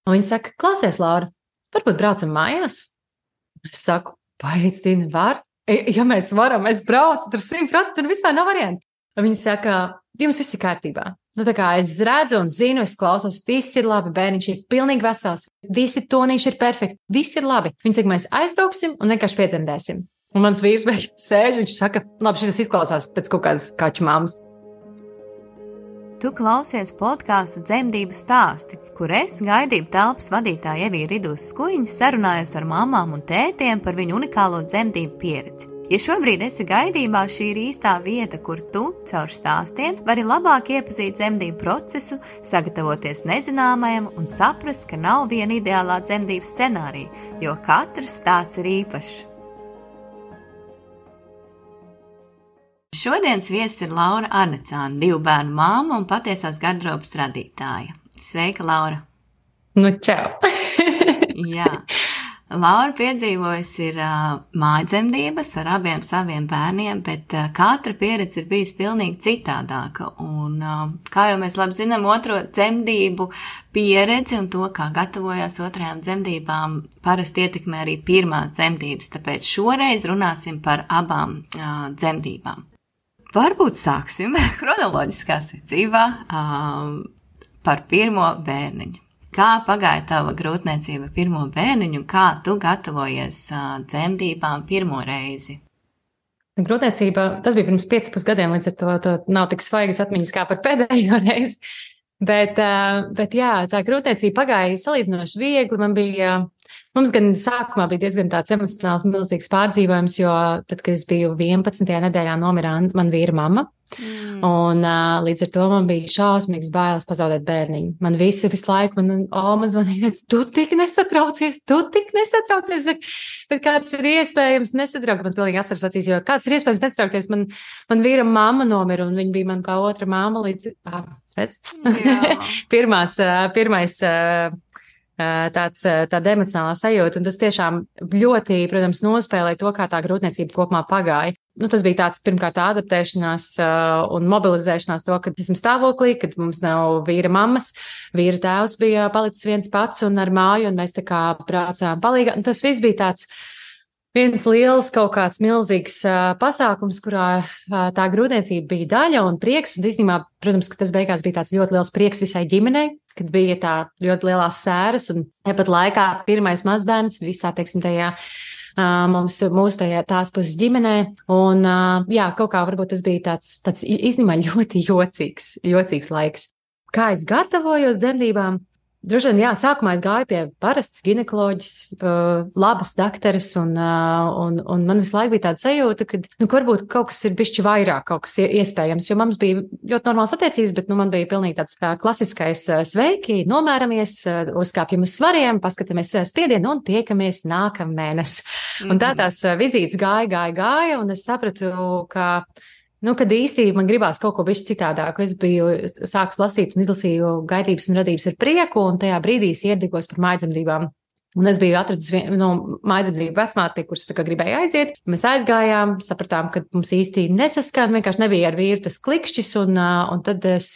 Un viņa saka, klausies, Laura, varbūt braucam mājās? Es saku, paiet, Tīna, var? Ja mēs varam, es braucu, tur 100%, tur vispār nav variantu. Un viņa saka, jums viss ir kārtībā. Nu, tā kā es redzu un zinu, es klausos, viss ir labi, bērniņš ir pilnīgi vesels, visi tonīši ir perfekti, viss ir labi. Viņa saka, mēs aizbrauksim un vienkārši piedzemdēsim. Un mans vīrs beigās sēž, viņš saka, labi, šis izklausās pēc kaut kādas kaķu māmas. Tu klausies podkāstu Dzemdību stāsti, kur es, gaidību telpas vadītāja Evija Ridūs Skuiņa, sarunājos ar mamām un tētiem par viņu unikālo dzemdību pieredzi. Ja šobrīd esi gaidībā, šī ir īstā vieta, kur tu, caur stāstiem, vari labāk iepazīt dzemdību procesu, sagatavoties nezināmajam un saprast, ka nav viena ideālā dzemdību scenārija, jo katrs stāsts ir īpašs. Šodienas viesis ir Laura Arnecāne, 2 bērnu māma un patiesās gardrobas radītāja. Sveika, Laura! Nu, čau! Jā. Laura piedzīvojusi ir mājdzemdības ar abiem saviem bērniem, bet katra pieredze ir bijusi pilnīgi citādāka. Un, kā jau mēs labi zinām, otro dzemdību pieredzi un to, kā gatavojās otrajām dzemdībām, parasti ietekmē arī pirmās dzemdības, tāpēc šoreiz runāsim par abām dzemdībām. Varbūt sāksim chronoloģiskā secībā par pirmo bērniņu. Kā pagāja tava grūtniecība pirmo bērniņu un kā tu gatavojies dzemdībām pirmo reizi? Grūtniecība, tas bija pirms 5,5 gadiem, līdz ar to nav tik svaigas atmiņas kā par pēdējo reizi. Bet jā, tā grūtniecība pagāja salīdzinoši viegli. Mums gan sākumā bija diezgan tāds emocionāls milzīgs pārdzīvojums, jo tad, kad es biju 11. nedēļā, nomira man vīra mamma. Un līdz ar to man bija šausmīgs bailes pazaudēt bērniņu. Man visu laiku, man zvanīja, tu tik nesatraucies. Bet kāds ir iespējams nesatraukt? Man pilnīgi asaras acīs, jo kāds ir iespējams nesatraukties? Man vīra mamma nomira, un viņa bija man kā otra mamma līdz... Pirmais tāda emocionālā sajūta, un tas tiešām ļoti, protams, nospēlēja to, kā tā grūtniecība kopumā pagāja. Tas bija tāds pirmkārt adaptēšanās un mobilizēšanās to, kad esam stāvoklī, kad mums nav vīra mammas, vīra tēvs bija palicis viens pats un ar māju, un mēs tā kā braucām palīgā. Un tas viss bija tāds viens liels kaut kāds milzīgs pasākums, kurā tā grūtniecība bija daļa un prieks, un īstenībā, protams, ka tas beigās bija tāds ļoti liels prieks visai ģimenei, kad bija tā ļoti lielās sēras, un pat laikā pirmais mazbērns visā, teiksim, tajā mūsu tās puses ģimenē, un jā, kaut kā varbūt tas bija tāds īstenībā ļoti jocīgs laiks. Kā es gatavojos dzemdībām? Droši vien, jā, sākumā es gāju pie parastas ginekoloģis, labas dakteres, un man visu laiku bija tāda sajūta, ka, varbūt kaut kas ir bišķi vairāk, kaut kas iespējams, jo mums bija ļoti normāls attiecības, bet, man bija pilnīgi tāds klasiskais sveiki, nomēramies, uzkāpjam uz svariem, paskatāmies spiedienu un tiekamies nākamēnes. Un tā tās vizītes gāja, un es sapratu, ka kad īstenībā man gribās kaut ko bišķi citādāku. Es biju sākus lasīt un izlasīju Gaidības un radības ar prieku, un tajā brīdī es iedegos par mājdzemdībām. Un es biju atradis mājdzemdību vecmāti, pie kuras gribēju aiziet. Mēs aizgājām, sapratām, ka mums īsti nesaskan, vienkārši nebija ar vīru tas klikšķis, un tad es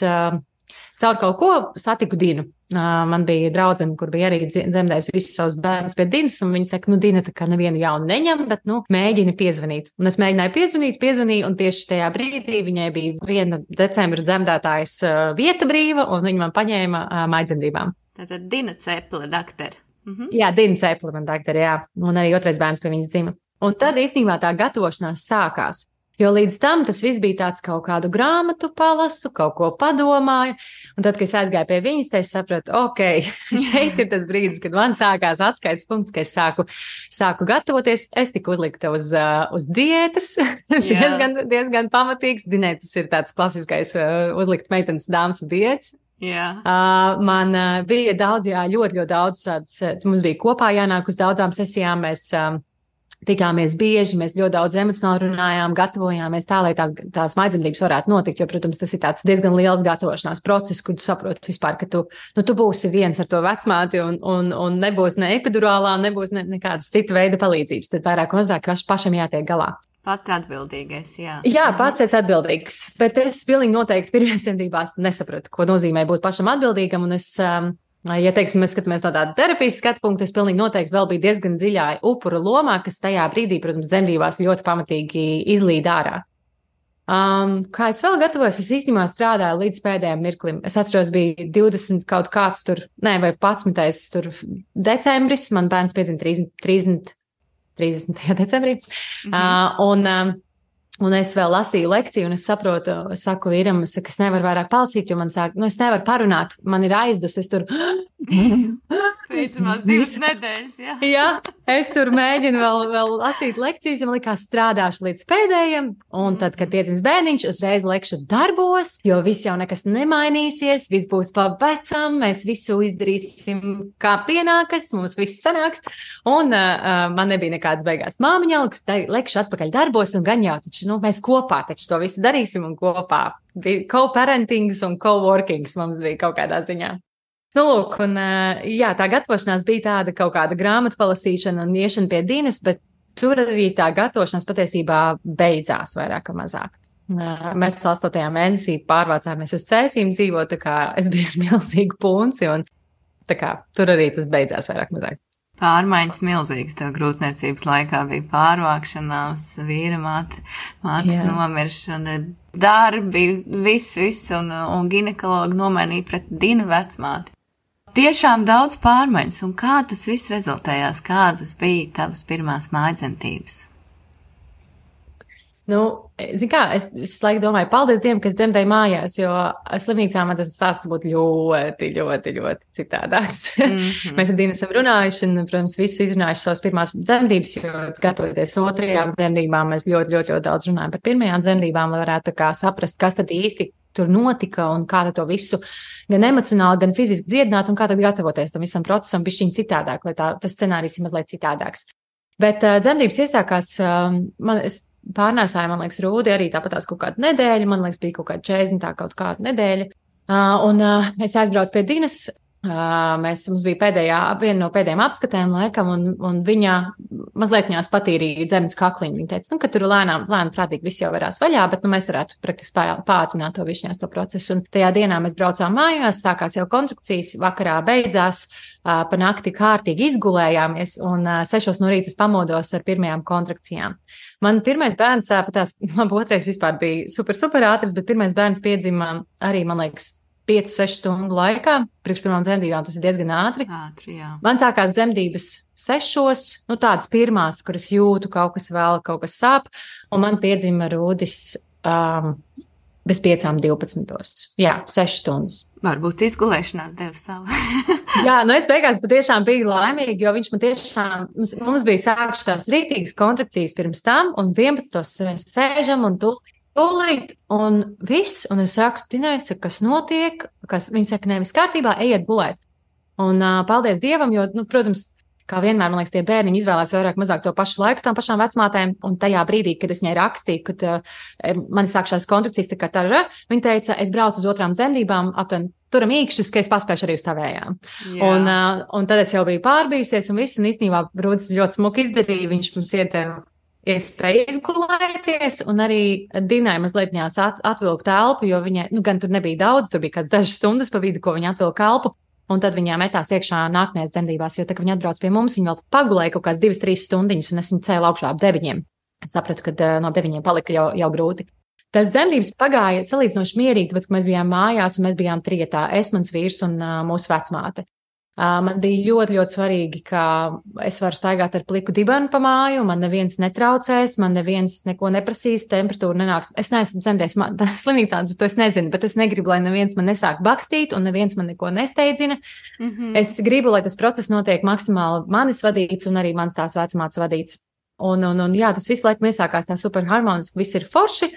caur kaut ko satiku Dinu. Man bija draudzene, kur bija arī dzemdējusi visus savus bērnus pie Dinas, un viņa saka, Dina tā kā nevienu jaunu neņem, bet, mēģini piezvanīt. Un es mēģināju piezvanīju, un tieši tajā brīdī viņai bija 1. decembra dzemdētājas vieta brīva, un viņa man paņēma mājdzemdībām. Tātad Dina Ceple, daktere. Jā, Dina Ceple, man daktere, jā. Un arī otrais bērns pie viņas dzima. Un tad īstenībā tā gatavošanās sākās. Jo līdz tam tas viss bija tāds kaut kādu grāmatu palasu, kaut ko padomāju, un tad, kad es aizgāju pie viņas, es sapratu, šeit ir tas brīdis, kad man sākās atskaites punkts, ka es sāku gatavoties, es tiku uzlikta uz diētas, diezgan pamatīgs, Dinai tas ir tāds klasiskais uzlikt meitenes dāmas diētas. Yeah. Man bija daudz, ļoti daudz, mums bija kopā jānāk uz daudzām sesijām, mēs tikāmies bieži, mēs ļoti daudz emocionāli runājām, gatavojāmies tā, lai tās mājdzemdības varētu notikt, jo, protams, tas ir tāds diezgan liels gatavošanās process, kur tu saproti vispār, ka tu būsi viens ar to vecmāti un nebūs ne epidurālā, nebūs nekādas cita veida palīdzības, tad vairāk un mazāk pašam jātiek galā. Pats atbildīgais, jā. Jā, pats esi atbildīgs, bet es pilnīgi noteikti pirmajās dzemdībās nesapratu, ko nozīmē būt pašam atbildīgam, un es Ja, teiksim, mēs skatāmies no tāda terapijas skatu punkta, es pilnīgi noteikti vēl biju diezgan dziļā upura lomā, kas tajā brīdī, protams, dzemdībās ļoti pamatīgi izlīd ārā. Kā es vēl gatavojos, es īstenībā strādāju līdz pēdējiem mirklim. Es atceros, bija 20 kaut kāds tur, vai 11. tur decembris, man bērns piedzima 30. decembrī. Un es vēl lasīju lekciju, un es saprotu, es saku vīram, es nevaru vairāk palasīt, jo man sāk, es nevaru parunāt, man ir aizdus, es tur. Pēcamās 2 nedēļas, jā. Jā, es tur mēģinu vēl lasīt lekcijas, jo man likās strādāšu līdz pēdējiem, un tad, kad piedzims bērniņš, uzreiz lekšu darbos, jo viss jau nekas nemainīsies, viss būs pa vecam, mēs visu izdarīsim kā pienākas, mums viss sanāks, un man nebija nekādas beigās māmiņalgas, lekšu atpakaļ darbos, un gan jau taču, mēs kopā taču to visu darīsim, un kopā bija co-parentings un co-workings mums bija kaut kādā ziņā. Lūk, un tā gatavošanās bija tāda kaut kāda grāmatu palasīšana un iešana pie Dinas, bet tur arī tā gatavošanās patiesībā beidzās vairāk vai mazāk. Mēs 8. mēnesī pārvācāmies uz Cēsīm dzīvot, tā kā es biju ar milzīgu punci, un tā kā tur arī tas beidzās vairāk vai mazāk. Pārmaiņas milzīgas tev grūtniecības laikā bija pārvākšanās, vīra mātes nomiršana, darbi, viss, un ginekologi nomainīja pret Dinu vecmāti. Tiešām daudz pārmaiņas, un kā tas viss rezultējās, kādas bija tavas pirmās mājdzemdības? Es laiku domāju, paldies Dievam, kas dzemdēja mājās, jo slimnīcā man tas sāks būt ļoti, ļoti, ļoti citādāks. Mēs ar Dinu esam runājuši un, protams, visu izrunājuši savas pirmās dzemdības, jo gatavoties 2. dzemdībām, mēs ļoti, ļoti, ļoti daudz runājam par pirmajām dzemdībām, lai varētu tā kā saprast, kas tad īsti tur notika un kā to visu gan emocionāli, gan fiziski dziedināt un kā tad gatavoties tam visam procesam bišķiņ citādāk, lai tas scenārijs ir mazliet citādāks. Bet dzemdības iesākās, es pārnēsāju, man liekas, Rūdi arī tāpatās kaut kādu nedēļu, man liekas, bija kaut kāda 40. kaut kāda nedēļa. Un es aizbraucu pie Dinas, mums bija viena no pēdējām apskatēm laikam, un viņa mazliet viņās patīrīja dzemdas kakliņu. Viņa teica, ka tur lēnām prātīgi viss jau varās vaļā, bet mēs varētu praktiski pātrināt to višņās to procesu. Un tajā dienā mēs braucām mājās, sākās jau kontrakcijas, vakarā beidzās, pa nakti kārtīgi izgulējāmies, un 6 no rīta pamodos ar pirmajām kontrakcijām. Man pirmais bērns, man otrais vispār bija super ātrs, bet pirmais bērns piedzima arī, man liekas, 5-6 stundu laikā, priekš pirmām dzemdībām tas ir diezgan ātri. Jā. Man sākās dzemdības 6, tādas pirmās, kuras jūtu, kaut kas sāp, un man piedzima Rūdis bez 5:12. Jā, 6 stundas. Varbūt izgulēšanās deva savu. Jā, es beigās patiešām biju laimīga, jo viņš man tiešām, mums bija sākušās rītīgas kontrakcijas pirms tam, un 11. mēs sēžam un tūlīt, un viss, un es saku, Dinai, kas notiek, viņi saka, nevis kārtībā, ejiet gulēt. Un paldies Dievam, jo, protams, kā vienmēr, man liekas, tie bērniņi izvēlās vairāk mazāk to pašu laiku tām pašām vecmātēm, un tajā brīdī, kad es viņai rakstīju, kad man sākšās kontrakcijas, tā kā tā, viņa teica, es braucu uz 2. dzemdībām, aptuveni turam īkšķus, ka es paspēšu arī uz tavējām. Un tad es jau biju pārbijusies, un viss, un īstenībā Rūdis ļoti smuki izdarīja, viņš mums ieteva iespēja izgulēties, un arī Dinai mazliet viņās atvilka telpu, jo viņai, gan tur nebija daudz, tur bija kāds dažas stundas pa vidu, ko viņa atvilka elpu, un tad viņā metās iekšā nākamajās dzemdībās, jo tā, ka viņa atbrauc pie mums, viņa vēl pagulēja kaut kāds 2-3 stundiņas, un es viņu cēlu augšā ap 9. Es sapratu, ka no 9 palika jau grūti. Tas dzemdības pagāja salīdzinoši mierīgi, tāpēc, ka mēs bijām mājās, un mēs bijām trietā, es, mans vīrs un mūsu vecmāte. Man bija ļoti, ļoti svarīgi, ka es varu staigāt ar pliku dibenu pa māju, man neviens netraucēs, man neviens neko neprasīs, temperatūra nenāks. Es neesmu dzemdējis slimnīcā, to es nezinu, bet es negribu, lai neviens man nesāk bakstīt un neviens man neko nesteidzina. Es gribu, lai tas process notiek maksimāli manis vadīts un arī mans tās vecmātes vadīts. Un jā, tas visu laiku iesākās tā super harmoniski, viss ir forši.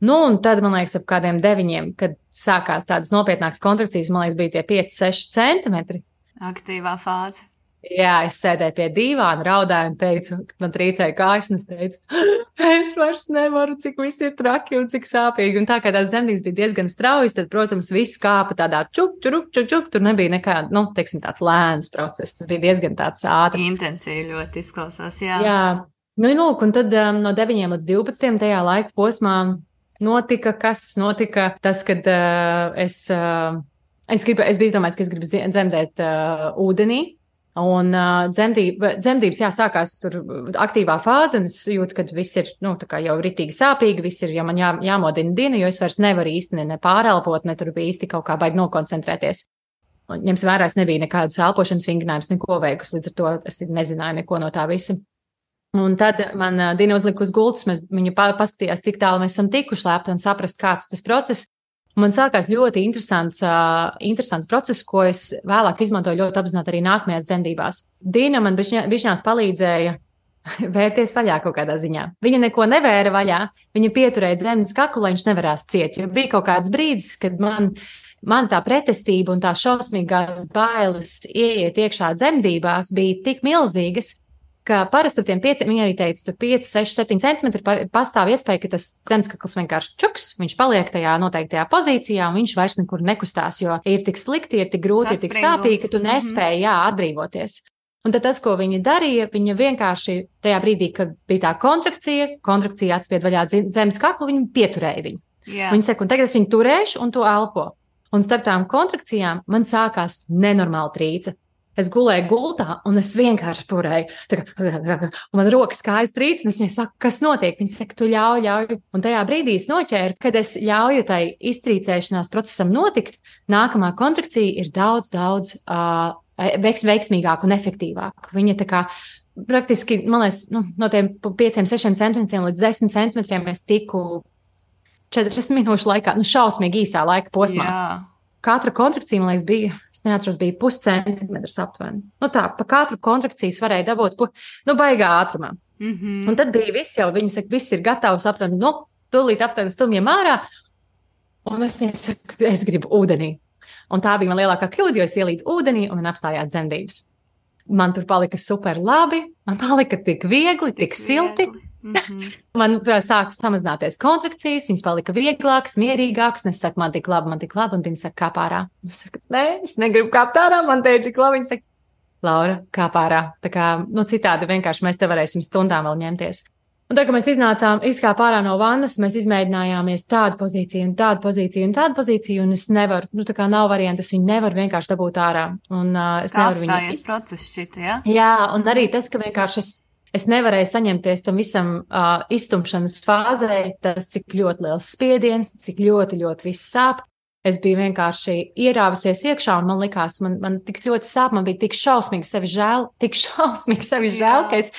Un tad, man liekas, ap kādiem 9, kad sākās tādas nopietnākas kontrakcijas, man liekas, bija tie 5-6 centimetri. Aktīvā fāze. Jā, es sēdēju pie dīvāna, raudāju un teicu, man trīcēja kājas, un es teicu, es vairs nevaru, cik viss ir traki un cik sāpīgi. Un tā kā tās dzemdības bija diezgan straujas, tad, protams, viss kāpa tādā čuk, tur nebija nekāda, teiksim, tāds lēns process, tas bija diezgan tāds ātrs. Intensīvi ļoti izklausās, jā. Jā, lūk, un tad no 9 līdz 12 tajā laika posmā notika tas, kad es Es biju izdomājis, ka es gribu dzemdēt ūdenī. Un dzemdības, jā, sākās tur aktīvā fāze, un es jūtu, ka viss ir, nu, tā kā jau ritīgi sāpīgi, viss ir, ja man jāmodina diena, jo es vairs nevaru īsti ne pārelpot, ne tur bija īsti kaut kā baigi nokoncentrēties. Un ņems vērā, es nebiju nekādus elpošanas vingrinājumus, neko veikus, līdz ar to es nezināju neko no tā visa. Un tad man Dina uzlika uz gultas, viņa paskatījās, cik tālu mēs esam tikuši lēpti un saprast, kāds tas process. Man sākās ļoti interesants process, ko es vēlāk izmantoju ļoti apzināti arī nākamajās dzemdībās. Dina man bišķinās palīdzēja vērties vaļā kaut kādā ziņā. Viņa neko nevēra vaļā, viņa pieturēja dzemdas kaklu, lai viņš nevarās ciet, jo bija kaut kāds brīdis, kad man tā pretestība un tā šausmīgās bailes ieiet iekšā dzemdībās bija tik milzīgas, ka parasti ar tiem 5, viņa arī teica, tur 5, 6, 7 centimetri pastāv iespēja, ka tas dzemdskakls vienkārši čuks, viņš paliek tajā noteiktajā pozīcijā un viņš vairs nekur nekustās, jo ir tik slikti, ir tik grūti, ir tik sāpīgi, ka tu nespēji, atbrīvoties. Un tad tas, ko viņa darīja, viņa vienkārši tajā brīdī, kad bija tā kontrakcija atspied vaļā dzemdskaklu, viņa pieturēja viņu. Yeah. Viņa saka, un tagad es viņu turēšu un to elpo. Un starp tām kontrakcijām man sākās nenormāla trīce. Es gulēju gultā, un es vienkārši turēju. Un man rokas kājas trīc, un es viņai saku, kas notiek? Viņa saka, tu ļauj. Un tajā brīdī es noķēru, kad es ļauju tai iztrīcēšanās procesam notikt, nākamā kontrakcija ir daudz veiksmīgāka un efektīvāka. Viņa tā kā praktiski, man liekas, no tiem 5-6 centimetriem līdz 10 centimetriem es tiku 40 minūšu laikā, šausmīgi īsā laika posmā. Jā. Katra kontrakcija, man liekas, bija, es neatceros, bija 0,5 centimetrs aptuveni. Tā, pa katru kontrakciju varēja dabūt, baigā ātrumā. Mm-hmm. Un tad bija viss jau, viņi saka, viss ir gatavs aptuveni, tūlīt aptuveni stumjiem ārā. Un es saku, es gribu ūdenī. Un tā bija man lielākā kļūda, jo es ielīdu ūdenī un man apstājās dzemdības. Man tur palika super labi, man palika tik viegli, tik silti. Mm-hmm. Man sāka samazināties kontrakcijas, viņas palika vieglākas, mierīgākas, un es saku, man tik labi, un viņa saka, kāp ārā. Es saku, nē, es negribu kāpt ārā, man te ir tik labi. Viņa saka, Laura, kāp ārā. Tā kā, citādi vienkārši mēs te varēsim stundām vēl ņemties. Un tā, ka mēs izkāp ārā no vannas, mēs izmēģinājāmies tādu pozīciju, un es nevaru, tā kā nav variantu, es viņu nevaru vienkārši dabūt ārā. Un es kā nevaru apstājies process šķita, ja? Jā, un arī tas, ka vienkārši es nevarēju saņemties tam visam iztumšanas fāzē, tas, cik ļoti liels spiediens, cik ļoti viss sāp. Es biju vienkārši ierāvusies iekšā, un man likās, man tik ļoti sāp, man bija tik šausmīgi sevi žēl, ka es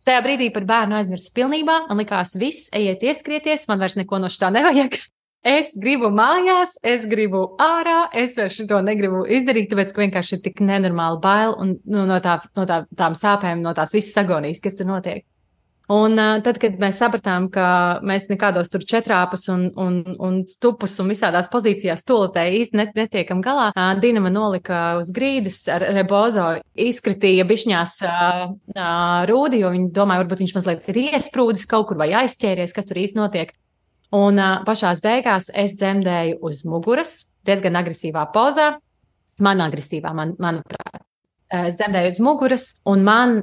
tajā brīdī par bērnu aizmirsu pilnībā. Man likās, viss, ejiet ieskrieties, man vairs neko no šitā nevajag. Es gribu mājās, es gribu ārā, es vairs to negribu izdarīt, tāpēc, ka vienkārši ir tik nenormāli bail un no tām sāpēm, no tās visas agonijas, kas tur notiek. Un tad, kad mēs sapratām, ka mēs nekādos tur četrāpus un tupus un visādās pozīcijās toletē īsti netiekam galā, Dina man nolika uz grīdas ar rebozo, izkritīja bišņās rūdi, jo viņi domāja, varbūt viņš mazliet ir iesprūdis kaut kur vai aizķēries, kas tur īsti notiek. Un pašās beigās es dzemdēju uz muguras, diezgan agresīvā pozā, manuprāt. Es dzemdēju uz muguras, un man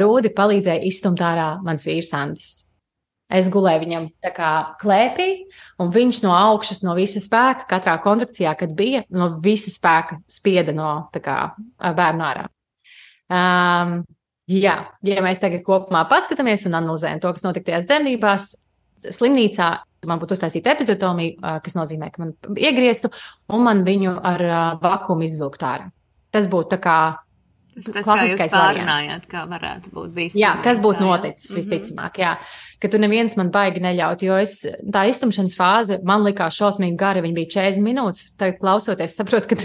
rūdi palīdzēja izstumt ārā mans vīrs Andis. Es gulēju viņam tā kā klēpī, un viņš no augšas, no visa spēka, katrā kontrakcijā, kad bija, no visa spēka spieda no tā kā bērnu ārā. Ja mēs tagad kopumā paskatāmies un analizējam to, kas notika tajās dzemdībās, slimnīcā man būtu uztaisīta epizotomija, kas nozīmē, ka man iegrieztu, un man viņu ar vakuumu izvilkt ārā. Tas būtu tā kā Tas, kā jūs pārunājāt, kā varētu būt bijis. Jā, kas būtu noticis, visticamāk, jā. Ka tu neviens man baigi neļaut, jo tā iztumšanas fāze man likās šausmīgi gara, viņa bija 40 minūtes, tagad klausoties, saprotu, ka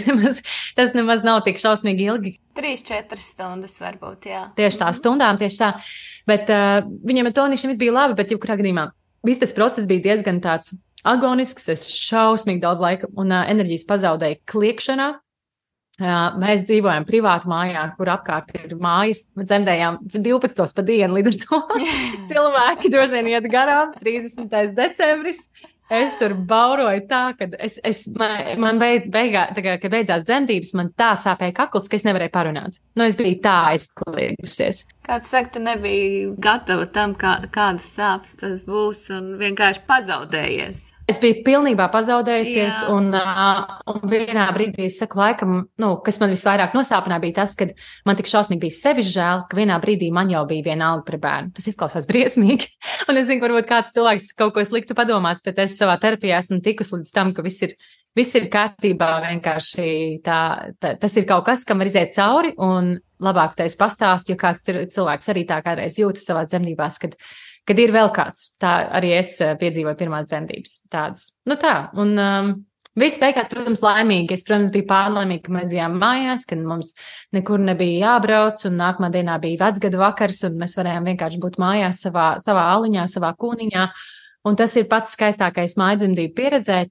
tas nemaz nav tik šausmīgi ilgi. 3-4 stundas varbūt, jā. Tieši tā, stundām, tieši tā. Bet viņam ar tonīšiem viss bija labi, bet jebkurā gadījumā viss tas process bija diezgan tāds agonisks, es šausmīgi daudz laika un enerģijas pazaudēju kliekšanā. Mēs dzīvojam privātu mājā, kur apkārt ir mājas, dzemdējām 12 pa dienu, līdz ar to cilvēki droši vien iet garām, 30. decembris. Es tur bauroju tā, ka man kad beidzās dzemdības, man tā sāpēja kakls, ka es nevarēju parunāt. Es biju tā aizkliegusies. Kāds saka, tu nebija gatava tam, kādas sāpes tas būs un vienkārši pazaudējies. Es biju pilnībā pazaudējusies, Jā. un vienā brīdī es saku, laikam, kas man visvairāk nosāpināja, bija tas, ka man tik šausmīgi bija sevis žēl, ka vienā brīdī man jau bija vienalga par bērnu. Tas izklausās briesmīgi. Un es zinu, varbūt kāds cilvēks kaut ko sliktu padomās, bet es savā terapijā esmu tikus līdz tam, ka viss ir kārtībā. Vienkārši tas ir kaut kas, kam var iziet cauri, un labāk tā es pastāstu, jo kāds cilvēks arī tā kādreiz jūtas savās dzemdībās, kad ir vēl kāds. Tā arī es piedzīvoju pirmās dzemdības tādas. Un viss beigās, protams, laimīgi. Es, protams, biju pārlaimīga, ka mēs bijām mājās, kad mums nekur nebija jābrauc, un nākamā dienā bija vecgadu vakars, un mēs varējām vienkārši būt mājās savā aliņā, savā kūniņā. Un tas ir pats skaistākais mājdzemdību pieredzē.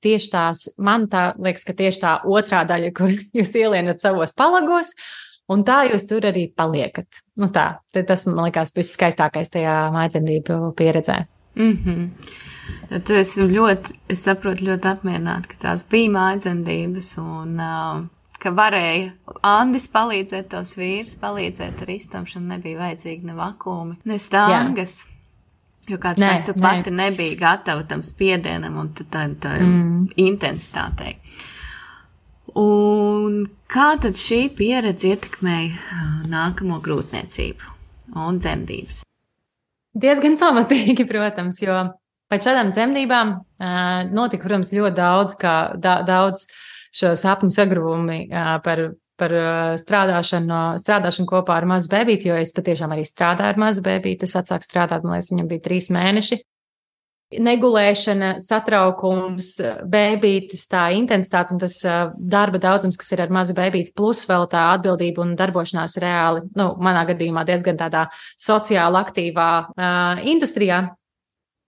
Man tā liekas, ka tieši tā otrā daļa, kur jūs ielienat savos palagos, un tā jūs tur arī paliekat. Tas man liekas viss skaistākais tajā mājdzemdību pieredzē. Tad tu esi es saprotu, ļoti apmierināta, ka tās bija mājdzemdības un ka varēja Andis palīdzēt, tos vīrs palīdzēt ar iztumšanu, nebija vajadzīgi ne vakumi, ne stāngas. Jo kāds saka, tu pati nebija gatava tam spiedienam un tā intensitātei. Un kā tad šī pieredze ietekmēja nākamo grūtniecību un dzemdības? Diezgan pamatīgi, protams, jo pēc šādām dzemdībām notika, protams, ļoti daudz šo sapņu sagruvumi par strādāšanu kopā ar mazu bebīti, jo es patiešām arī strādāju ar mazu bebīti. Es atsāku strādāt, man liekas, viņam bija 3 mēneši. Negulēšana, satraukums, bebītis, tā intensitāte un tas darba daudzums, kas ir ar mazu bebīti, plus vēl tā atbildība un darbošanās reāli, manā gadījumā diezgan tādā sociāli aktīvā industrijā.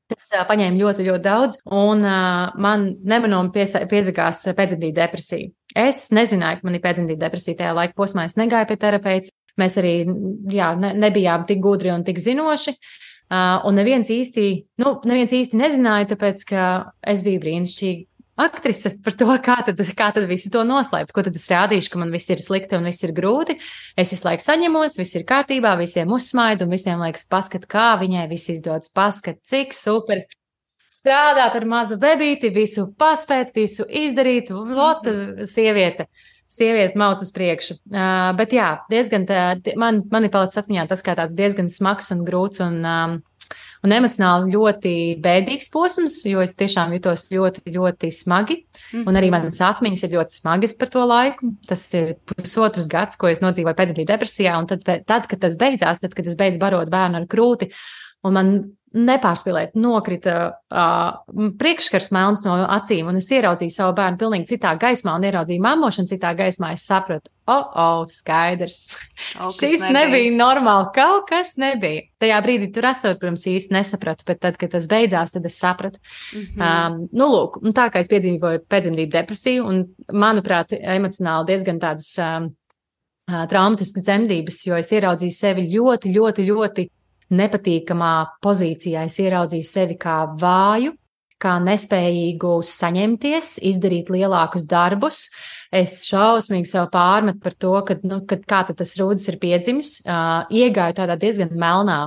Tas paņēma ļoti, ļoti daudz, un man nemanāmi piezagās pēcdzemdību depresija. Es nezināju, ka man ir pēcdzemdību depresija tajā laika posmā. Es negāju pie terapeits. Mēs arī nebijām tik gudri un tik zinoši. Un neviens īsti nezināja, tāpēc, ka es biju brīnišķīga aktrise par to, kā tad visi to noslēpt. Ko tad es rādīšu, ka man viss ir slikti un viss ir grūti. Es visu laiku saņemos, viss ir kārtībā, visiem uzsmaidu un visiem liekas, paskat, kā viņai viss izdodas, paskat, cik super. Strādāt ar mazu bebīti, visu paspēt, visu izdarīt, sieviete mauc uz priekšu. Bet jā, diezgan man ir palicis atmiņā tas kā tāds diezgan smags un grūts un emocionāli ļoti bēdīgs posms, jo es tiešām jutos ļoti, ļoti smagi. Un arī manas atmiņas ir ļoti smagas par to laiku. Tas ir pusotrs gads, ko es nodzīvoju pēcdzemdību depresijā, un tad, kad tas beidzās, kad es beidzu barot bērnu ar krūti, un man nepārspīlēt, nokrita priekšskars melns no acīm, un es ieraudzīju savu bērnu pilnīgi citā gaismā, un ieraudzīju mammošanu citā gaismā. Es sapratu, skaidrs. Šis nebija normāli, kaut kas nebija. Tajā brīdī tur esot, protams, īsti nesapratu, bet tad, kad tas beidzās, tad es sapratu. Lūk, un tā kā es piedzīvoju pēcdzemdību depresiju, un, manuprāt, emocionāli diezgan tādas traumatiskas dzemdības, jo es ieraudzīju sevi ļoti, ļoti, ļoti nepatīkamā pozīcijā. Es ieraudzīju sevi kā vāju, kā nespējīgu saņemties, izdarīt lielākus darbus. Es šausmīgi sev pārmetu par to, kā tad tas rūdis ir piedzimis. Iegāju tādā diezgan melnā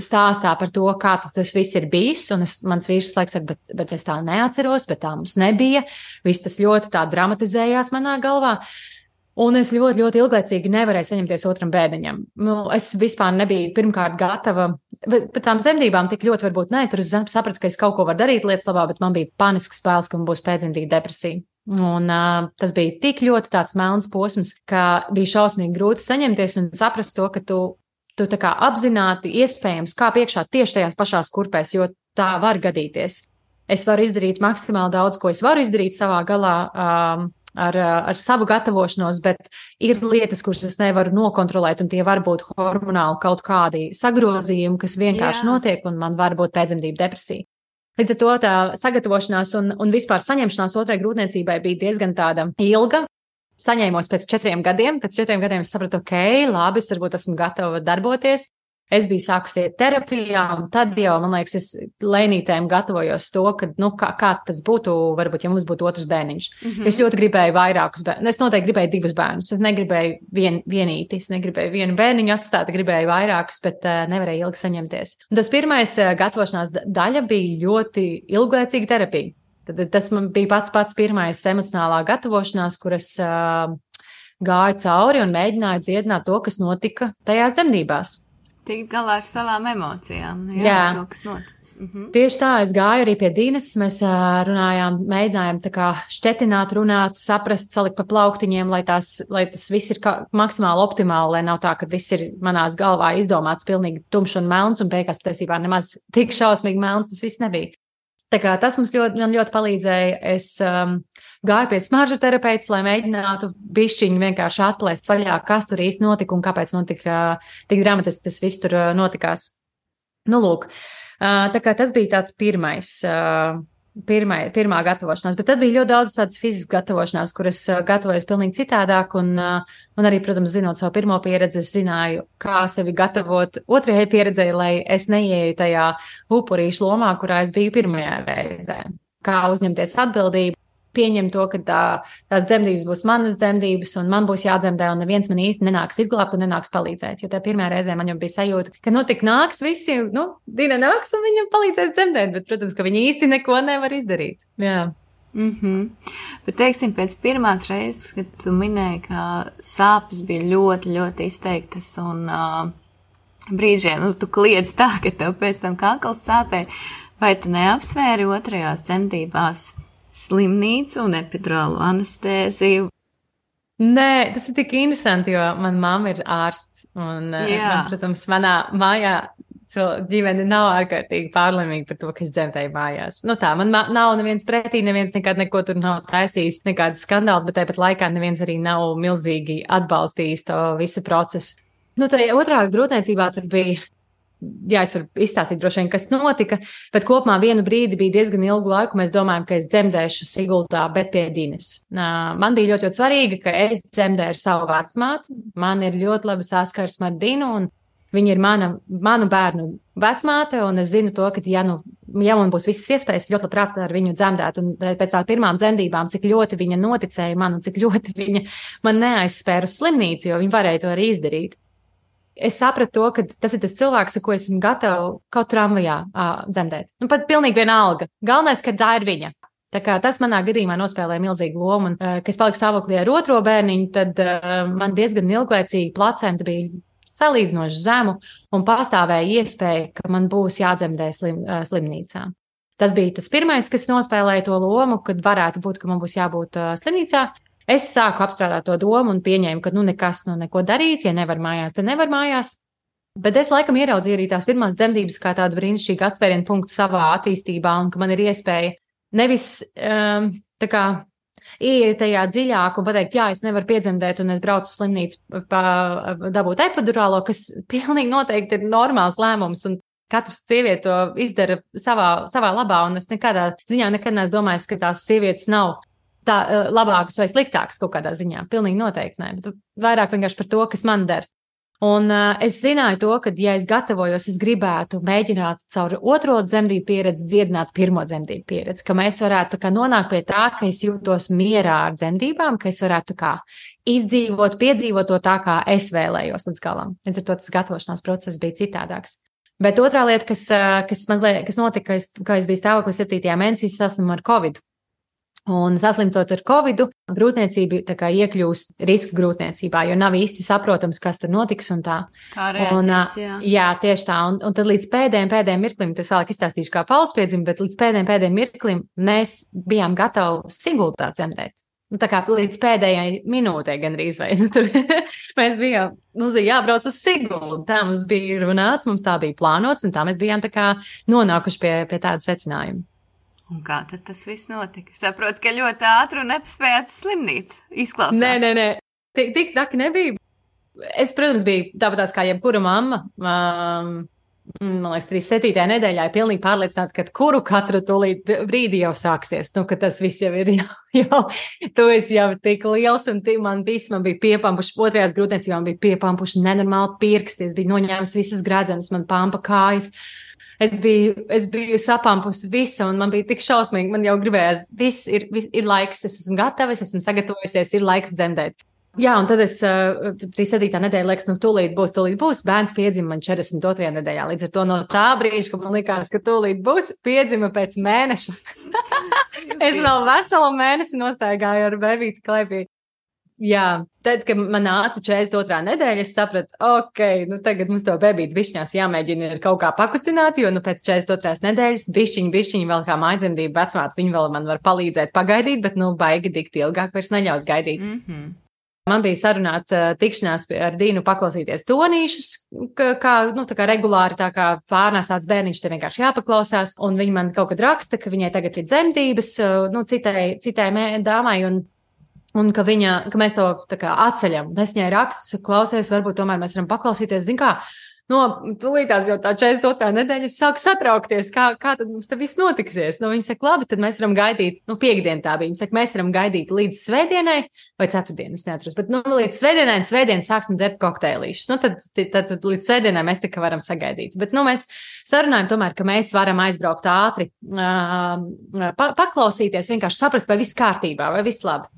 stāstā par to, kā tas viss ir bijis. Un mans vīrs laiks saka, bet es tā neatceros, bet tā mums nebija. Viss tas ļoti tā dramatizējās manā galvā. Un es ļoti, ļoti ilglaicīgi nevarēju saņemties otram bērniņam. Es vispār nebiju pirmkārt gatava, bet par tām dzemdībām tik ļoti varbūt nē, tur es sapratu, ka es kaut ko varu darīt lietas labā, bet man bija panisks bailes, ka man būs pēcdzemdību depresija. Un tas bija tik ļoti tāds melns posms, ka bija šausmīgi grūti saņemties un saprast to, ka tu tā kā apzināti iespējams kā piekšā tieši tajās pašās kurpēs, jo tā var gadīties. Es varu izdarīt maksimāli daudz, ko es varu izdarīt savā galā, ar savu gatavošanos, bet ir lietas, kuras es nevaru nokontrolēt, un tie var būt hormonāli kaut kādi sagrozījumi, kas vienkārši notiek, un man var būt pēcdzemdību depresija. Līdz ar to tā sagatavošanās un vispār saņemšanās otrai grūtniecībai bija diezgan tāda ilga. Saņēmos pēc 4 gadiem. Pēc 4 gadiem es sapratu, labi, es varbūt esmu gatava darboties. es biju sākus iet terapijā, un tad jau, man liekas, es lēnītēm gatavojos to, ka, kā tas būtu, varbūt, ja mums būtu otrs bērniņš. Es ļoti gribēju vairākus bērnus. Es noteikti gribēju 2 bērnus. Es negribēju vienīti, es negribēju vienu bērniņu atstāt, gribēju vairākus, bet nevarēju ilgi saņemties. Un tas pirmais gatavošanās daļa bija ļoti ilglaicīga terapija. Tad tas man bija pats pirmais emocionālā gatavošanās, kuras gāju cauri un mēģināju dziedināt to, kas notika tajās dzemdībās. Tikt galā ar savām emocijām, to, kas noticis. Tieši tā, es gāju arī pie Dīnes, mēs runājām, mēģinājām tā kā šķetināt, runāt, saprast, salikt pa plauktiņiem, lai tas viss ir maksimāli optimāli, lai nav tā, ka viss ir manās galvā izdomāts pilnīgi tumšs un melns, un beigās patiesībā nemaz tik šausmīgi melns tas viss nebija. Tā kā tas man ļoti palīdzēja. Es gāju pie smaržu terapeits, lai mēģinātu bišķiņu vienkārši atplēst vaļā, kas tur īsti notika un kāpēc man tik dramatiski tas viss tur notikās. Nu, lūk, tā kā tas bija tāds pirmā gatavošanās, bet tad bija ļoti daudz tādas fiziskas gatavošanās, kuras gatavojas pilnīgi citādāk, un arī, protams, zinot savu pirmo pieredzi, es zināju, kā sevi gatavot otrajai pieredzei, lai es neieju tajā upurīšu lomā, kurā es biju pirmajā reizē. Kā uzņemties atbildību, pieņemt to, ka tās dzemdības būs manas dzemdības, un man būs jādzemdē, un neviens man īsti nenāks izglābt un nenāks palīdzēt. Jo tā pirmā reizē man jau bija sajūta, ka tik nāks visi, Dina nāks un viņam palīdzēs dzemdēt, bet, protams, ka viņi īsti neko nevar izdarīt. Jā. Bet, teiksim, pēc pirmās reizes, kad tu minēji, ka sāpes bija ļoti, ļoti izteiktas, un brīžiem, tu kliedz tā, ka tev pēc tam kakls sāpēja, vai tu neapsvēri otrajās dzemdībās slimnīcu un epidurālu anestēziju? Nē, tas ir tik interesanti, jo mana mamma ir ārsts, un, protams, manā mājā ģimene nav ārkārtīgi pārlaimīga par to, ka es dzemdēju mājās. Man nav neviens pretī, neviens nekad neko tur nav taisījis, nekādas skandāls, bet tāpat laikā neviens arī nav milzīgi atbalstījis to visu procesu. Tajā otrā grūtniecībā tur bija, es varu izstāstīt droši vien, kas notika, bet kopumā vienu brīdi bija diezgan ilgu laiku, mēs domājam, ka es dzemdēšu Sigultā, bet pie Dīnes. Man bija ļoti, ļoti svarīgi, ka es dzemdēju savu vecmāti, man ir ļoti laba saskarsme ar Dinu, un viņa ir manu bērnu vecmāte, un es zinu to, ka, ja man būs visas iespējas, ļoti labprāt ar viņu dzemdēt, un pēc tām pirmām dzemdībām, cik ļoti viņa noticēja man, un cik ļoti viņa man neaizspēra uz slimnīcu, jo viņa varēja to arī izdarīt. Es sapratu to, ka tas ir tas cilvēks, ar ko esmu gatava kaut tramvajā dzemdēt. Pat pilnīgi vienalga. Galvenais, ka tā ir viņa. Tā kā tas manā gadījumā nospēlēja milzīgu lomu, un, kad es paliku stāvoklī ar otro bērniņu, tad man diezgan ilglaicīgi placenta bija salīdzinoši zemu, un pastāvēja iespēja, ka man būs jādzemdē slimnīcā. Tas bija tas pirmais, kas nospēlēja to lomu, kad varētu būt, ka man būs jābūt slimnīcā. Es sāku apstrādāt to domu un pieņēmu, ka nekas, neko darīt, ja nevar mājās, tad nevar mājās. Bet es laikam ieraudzīju arī tās pirmās dzemdības kā tādu brīnišķīgu atspērienu punktu savā attīstībā, un ka man ir iespēja nevis ieiet tajā dziļāk un pateikt, es nevaru piedzemdēt, un es braucu uz slimnīcu dabūt epidurālo, kas pilnīgi noteikti ir normāls lēmums, un katrs sieviete to izdara savā labā, un es nekādā ziņā nekad neesmu domājis, ka tās sievietes nav tā labākas vai sliktākas kaut kādā ziņā. Pilnīgi noteikti nē, bet vairāk vienkārši par to, kas man der. Un es zināju to, ka, ja es gatavojos, es gribētu mēģināt caur otro dzemdību pieredzi dziedināt pirmo dzemdību pieredzi, ka mēs varētu nonākt pie tā, ka es jūtos mierā ar dzemdībām, ka es varētu izdzīvot, piedzīvot to tā, kā es vēlējos līdz galam. Līdz ar to tas gatavošanās process bija citādāks. Bet otrā lieta, kas notika, ka es biju stāvoklī 7. mēnesī, saslimu ar Covid. Un saslimtot ar Covidu, grūtniecība iekļūst riska grūtniecībā, jo nav īsti saprotams, kas tur notiks un tā. Kā rēties, jā, tieši tā. Un tad līdz pēdējiem mirklim, tas vēlāk izstāstīšu kā pauspiedzimu, bet līdz pēdējiem mirklim mēs bijām gatavi Sigultā dzemdēt. Tā kā līdz pēdējai minūtei gandrīz vai. Tur mēs bijām, mums bija jābrauc uz Sigultu, tā mums bija runāts, mums tā bija plānots, un tā mēs bijām nonākuši pie tāda secinājuma. Un kā tad tas viss notika? Saprotu, ka ļoti ātri un nepaspējāt uz slimnīcu. Izklausās. Nē. Tik traki nebija. Es, protams, biju tāpatās kā jebkura mamma. man liekas, 37. nedēļā ir pilnīgi pārliecināta, ka katru tūlīt brīdi jau sāksies. Nu, ka tas viss jau ir tu esi jau tik liels un man bija piepampuši, otrajās grūtniecībām bija piepampuši nenormāli pirksti, es biju noņēmis visas gradzenes, man pampa kājas. Es biju sapampusi visu, un man bija tik šausmīgi, man jau gribējās, viss ir laiks, es esmu gatava, es esmu sagatavojusies, ir laiks dzemdēt. Jā, un tad es 37. nedēļa, liekas, tūlīt būs, bērns piedzima man 42. nedēļā, līdz ar to no tā brīža, ka man likās, ka tūlīt būs, piedzima pēc mēneša. Es vēl veselu mēnesi nostaigāju ar bebīti klēpī. Jā, tad, kad man nāca 42. nedēļa, es sapratu, tagad mums to bebīti bišķņās jāmēģina kaut kā pakustināt, jo pēc 42. nedēļas bišķiņi vēl kā mājdzemdību vecmāte, viņi vēl man var palīdzēt pagaidīt, bet baigi dikti ilgāk vairs neļaus gaidīt. Mm-hmm. Man bija sarunāta tikšanās ar Dīnu paklausīties tonīšus, kā regulāri, tā kā pārnēsāts bērniņš, te vienkārši jāpaklausās, un viņa man kaut kad raksta, ka viņai tagad ir dzemdības, citai dāmai, un ka mēs to tā kā atceļam. Es viņai rakstu, klausies, varbūt tomēr mēs varam paklausīties, zin kā, tūlītās jau tā 42. nedēļa es sāku satraukties, kā tad mums te viss notiksies. Viņa saka, labi, tad mēs varam gaidīt, piekdien tā bija, viņa saka, mēs varam gaidīt līdz svētdienai, vai ceturtdien, es neatceros, bet līdz svētdienai un svētdien sāksim dzert kokteilīšus. Tad līdz svētdienai mēs tikai varam sagaidīt. Bet, mēs sarunājam tomēr, ka mēs varam aizbraukt ātri, paklausīties, vienkārši saprast, vai viss kārtībā, vai viss labi.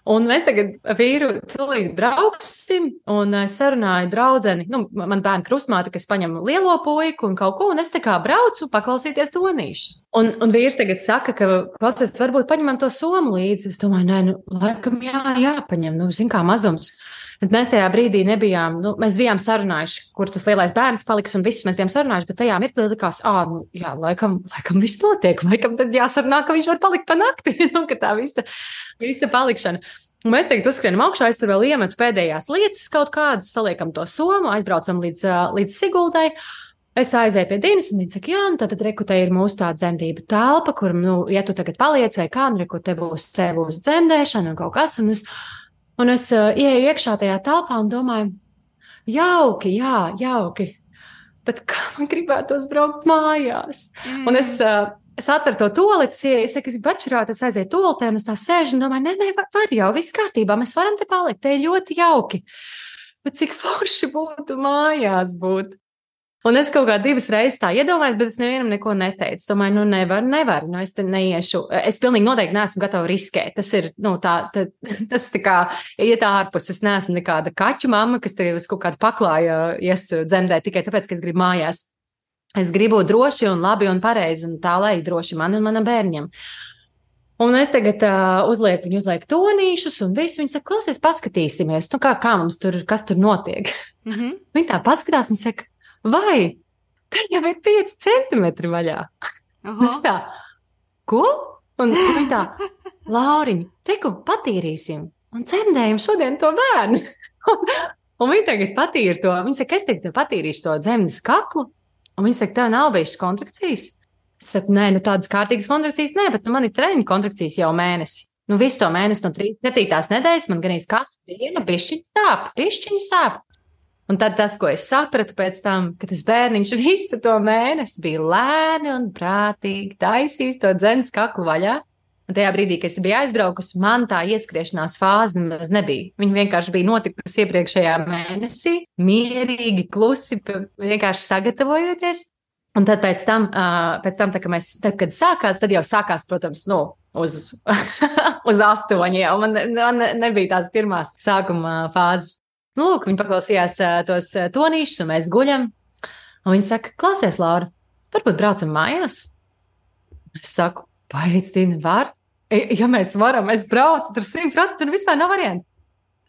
Un mēs tagad vīru tūlīt brauksim, un es sarunāju draudzeni, man bērna krustmāte, kas paņem lielo puiku un kaut ko, un es tā kā braucu paklausīties tonīšus. Un vīrs tagad saka, ka klausies, varbūt paņemam to somu līdzi. Es domāju, laikam jāpaņem, zin kā mazums. Bet mēs tajā brīdī nebijām, mēs bijām sarunājuši, kur tas lielais bērns paliks, un visus mēs bijām sarunājuši, bet tajā mirklī likās, laikam viss notiek, laikam tad jāsarunā, ka viņš var palikt pa nakti, ka tā visa palikšana. Un mēs tagad uzskrienam augšā, es tur vēl iemetu pēdējās lietas kaut kādas, saliekam to somu, aizbraucam līdz Siguldai. Es aizēju pie Dīnas, un viņa saka, tad rekutē ir mūsu tā dzemdību telpa, kur, ja tu tagad paliec vai kā, rekutē būs dzemdēšana un kaut kas, un es ieeju iekšā tajā telpā un domāju, jauki, bet kā man gribētos braukt mājās? Un es atveru to toleti, es saku, es bačurāt, es aizēju toletē, un es tā sēžu un domāju, var jau, viss kārtībā, mēs varam te palikt, te ir ļoti jauki. Bet cik forši būtu mājās būt? Un es kaut kā 2 reizes tā iedomājos, bet es nevienam neko neteicu. Domāju, nevar, es te neiešu. Es pilnīgi noteikti neesmu gatava riskēt. Tas ir, tas tā kā iet ārpus. Es neesmu nekāda kaķu mamma, kas te uz kaut kādu paklāju dzemdēt tikai tāpēc, ka es gribu mājās. Es gribu droši un labi un pareizi, un tā lai droši man un manam bērņam. Un es tagad viņu uzlieku tonīšus, un visu viņa saka, klausies, paskatīsimies, kā mums tur, kas tur notiek. Mm-hmm. Viņa tā paskatās un saka, vai, te jau ir 5 centimetri vaļā. Es tā, ko? Un viņa tā, Lauriņ, reku, patīrīsim un dzemdējam šodien to bērnu. Un viņa tagad patīra to, viņa saka, es tagad patīrīšu to dzemdes kaklu, un viņa saka, tev nav bijušas kontrakcijas? Es saku, nē, tādas kārtīgas kontrakcijas nē, bet man ir treņu kontrakcijas jau mēnesi. Visu to mēnesi no 37. nedēļas man ganīs katru dienu bišķiņi sāp. Un tad tas, ko es sapratu pēc tam, ka tas bērniņš visu to mēnesi bija lēni un prātīgi taisījis to dzemdes kaklu vaļā. Un tajā brīdī, kad es biju aizbraukusi, man tā ieskriešanās fāze nemaz nebija. Viņa vienkārši bija notikusi iepriekšējā mēnesī, mierīgi, klusi, vienkārši sagatavojoties. Un tad pēc tam kad sākās, tad jau sākās, protams, uz 8 jau. Man nebija tās pirmās sākuma fāzes. Lūk, viņi paklausījās tos tonīšus, un mēs guļam. Un viņi saka, klausies, Laura, varbūt braucam mājās? Es saku, paic, Tīna, var? Ja mēs varam, es braucu, tur 100%, tur vispār nav varianti.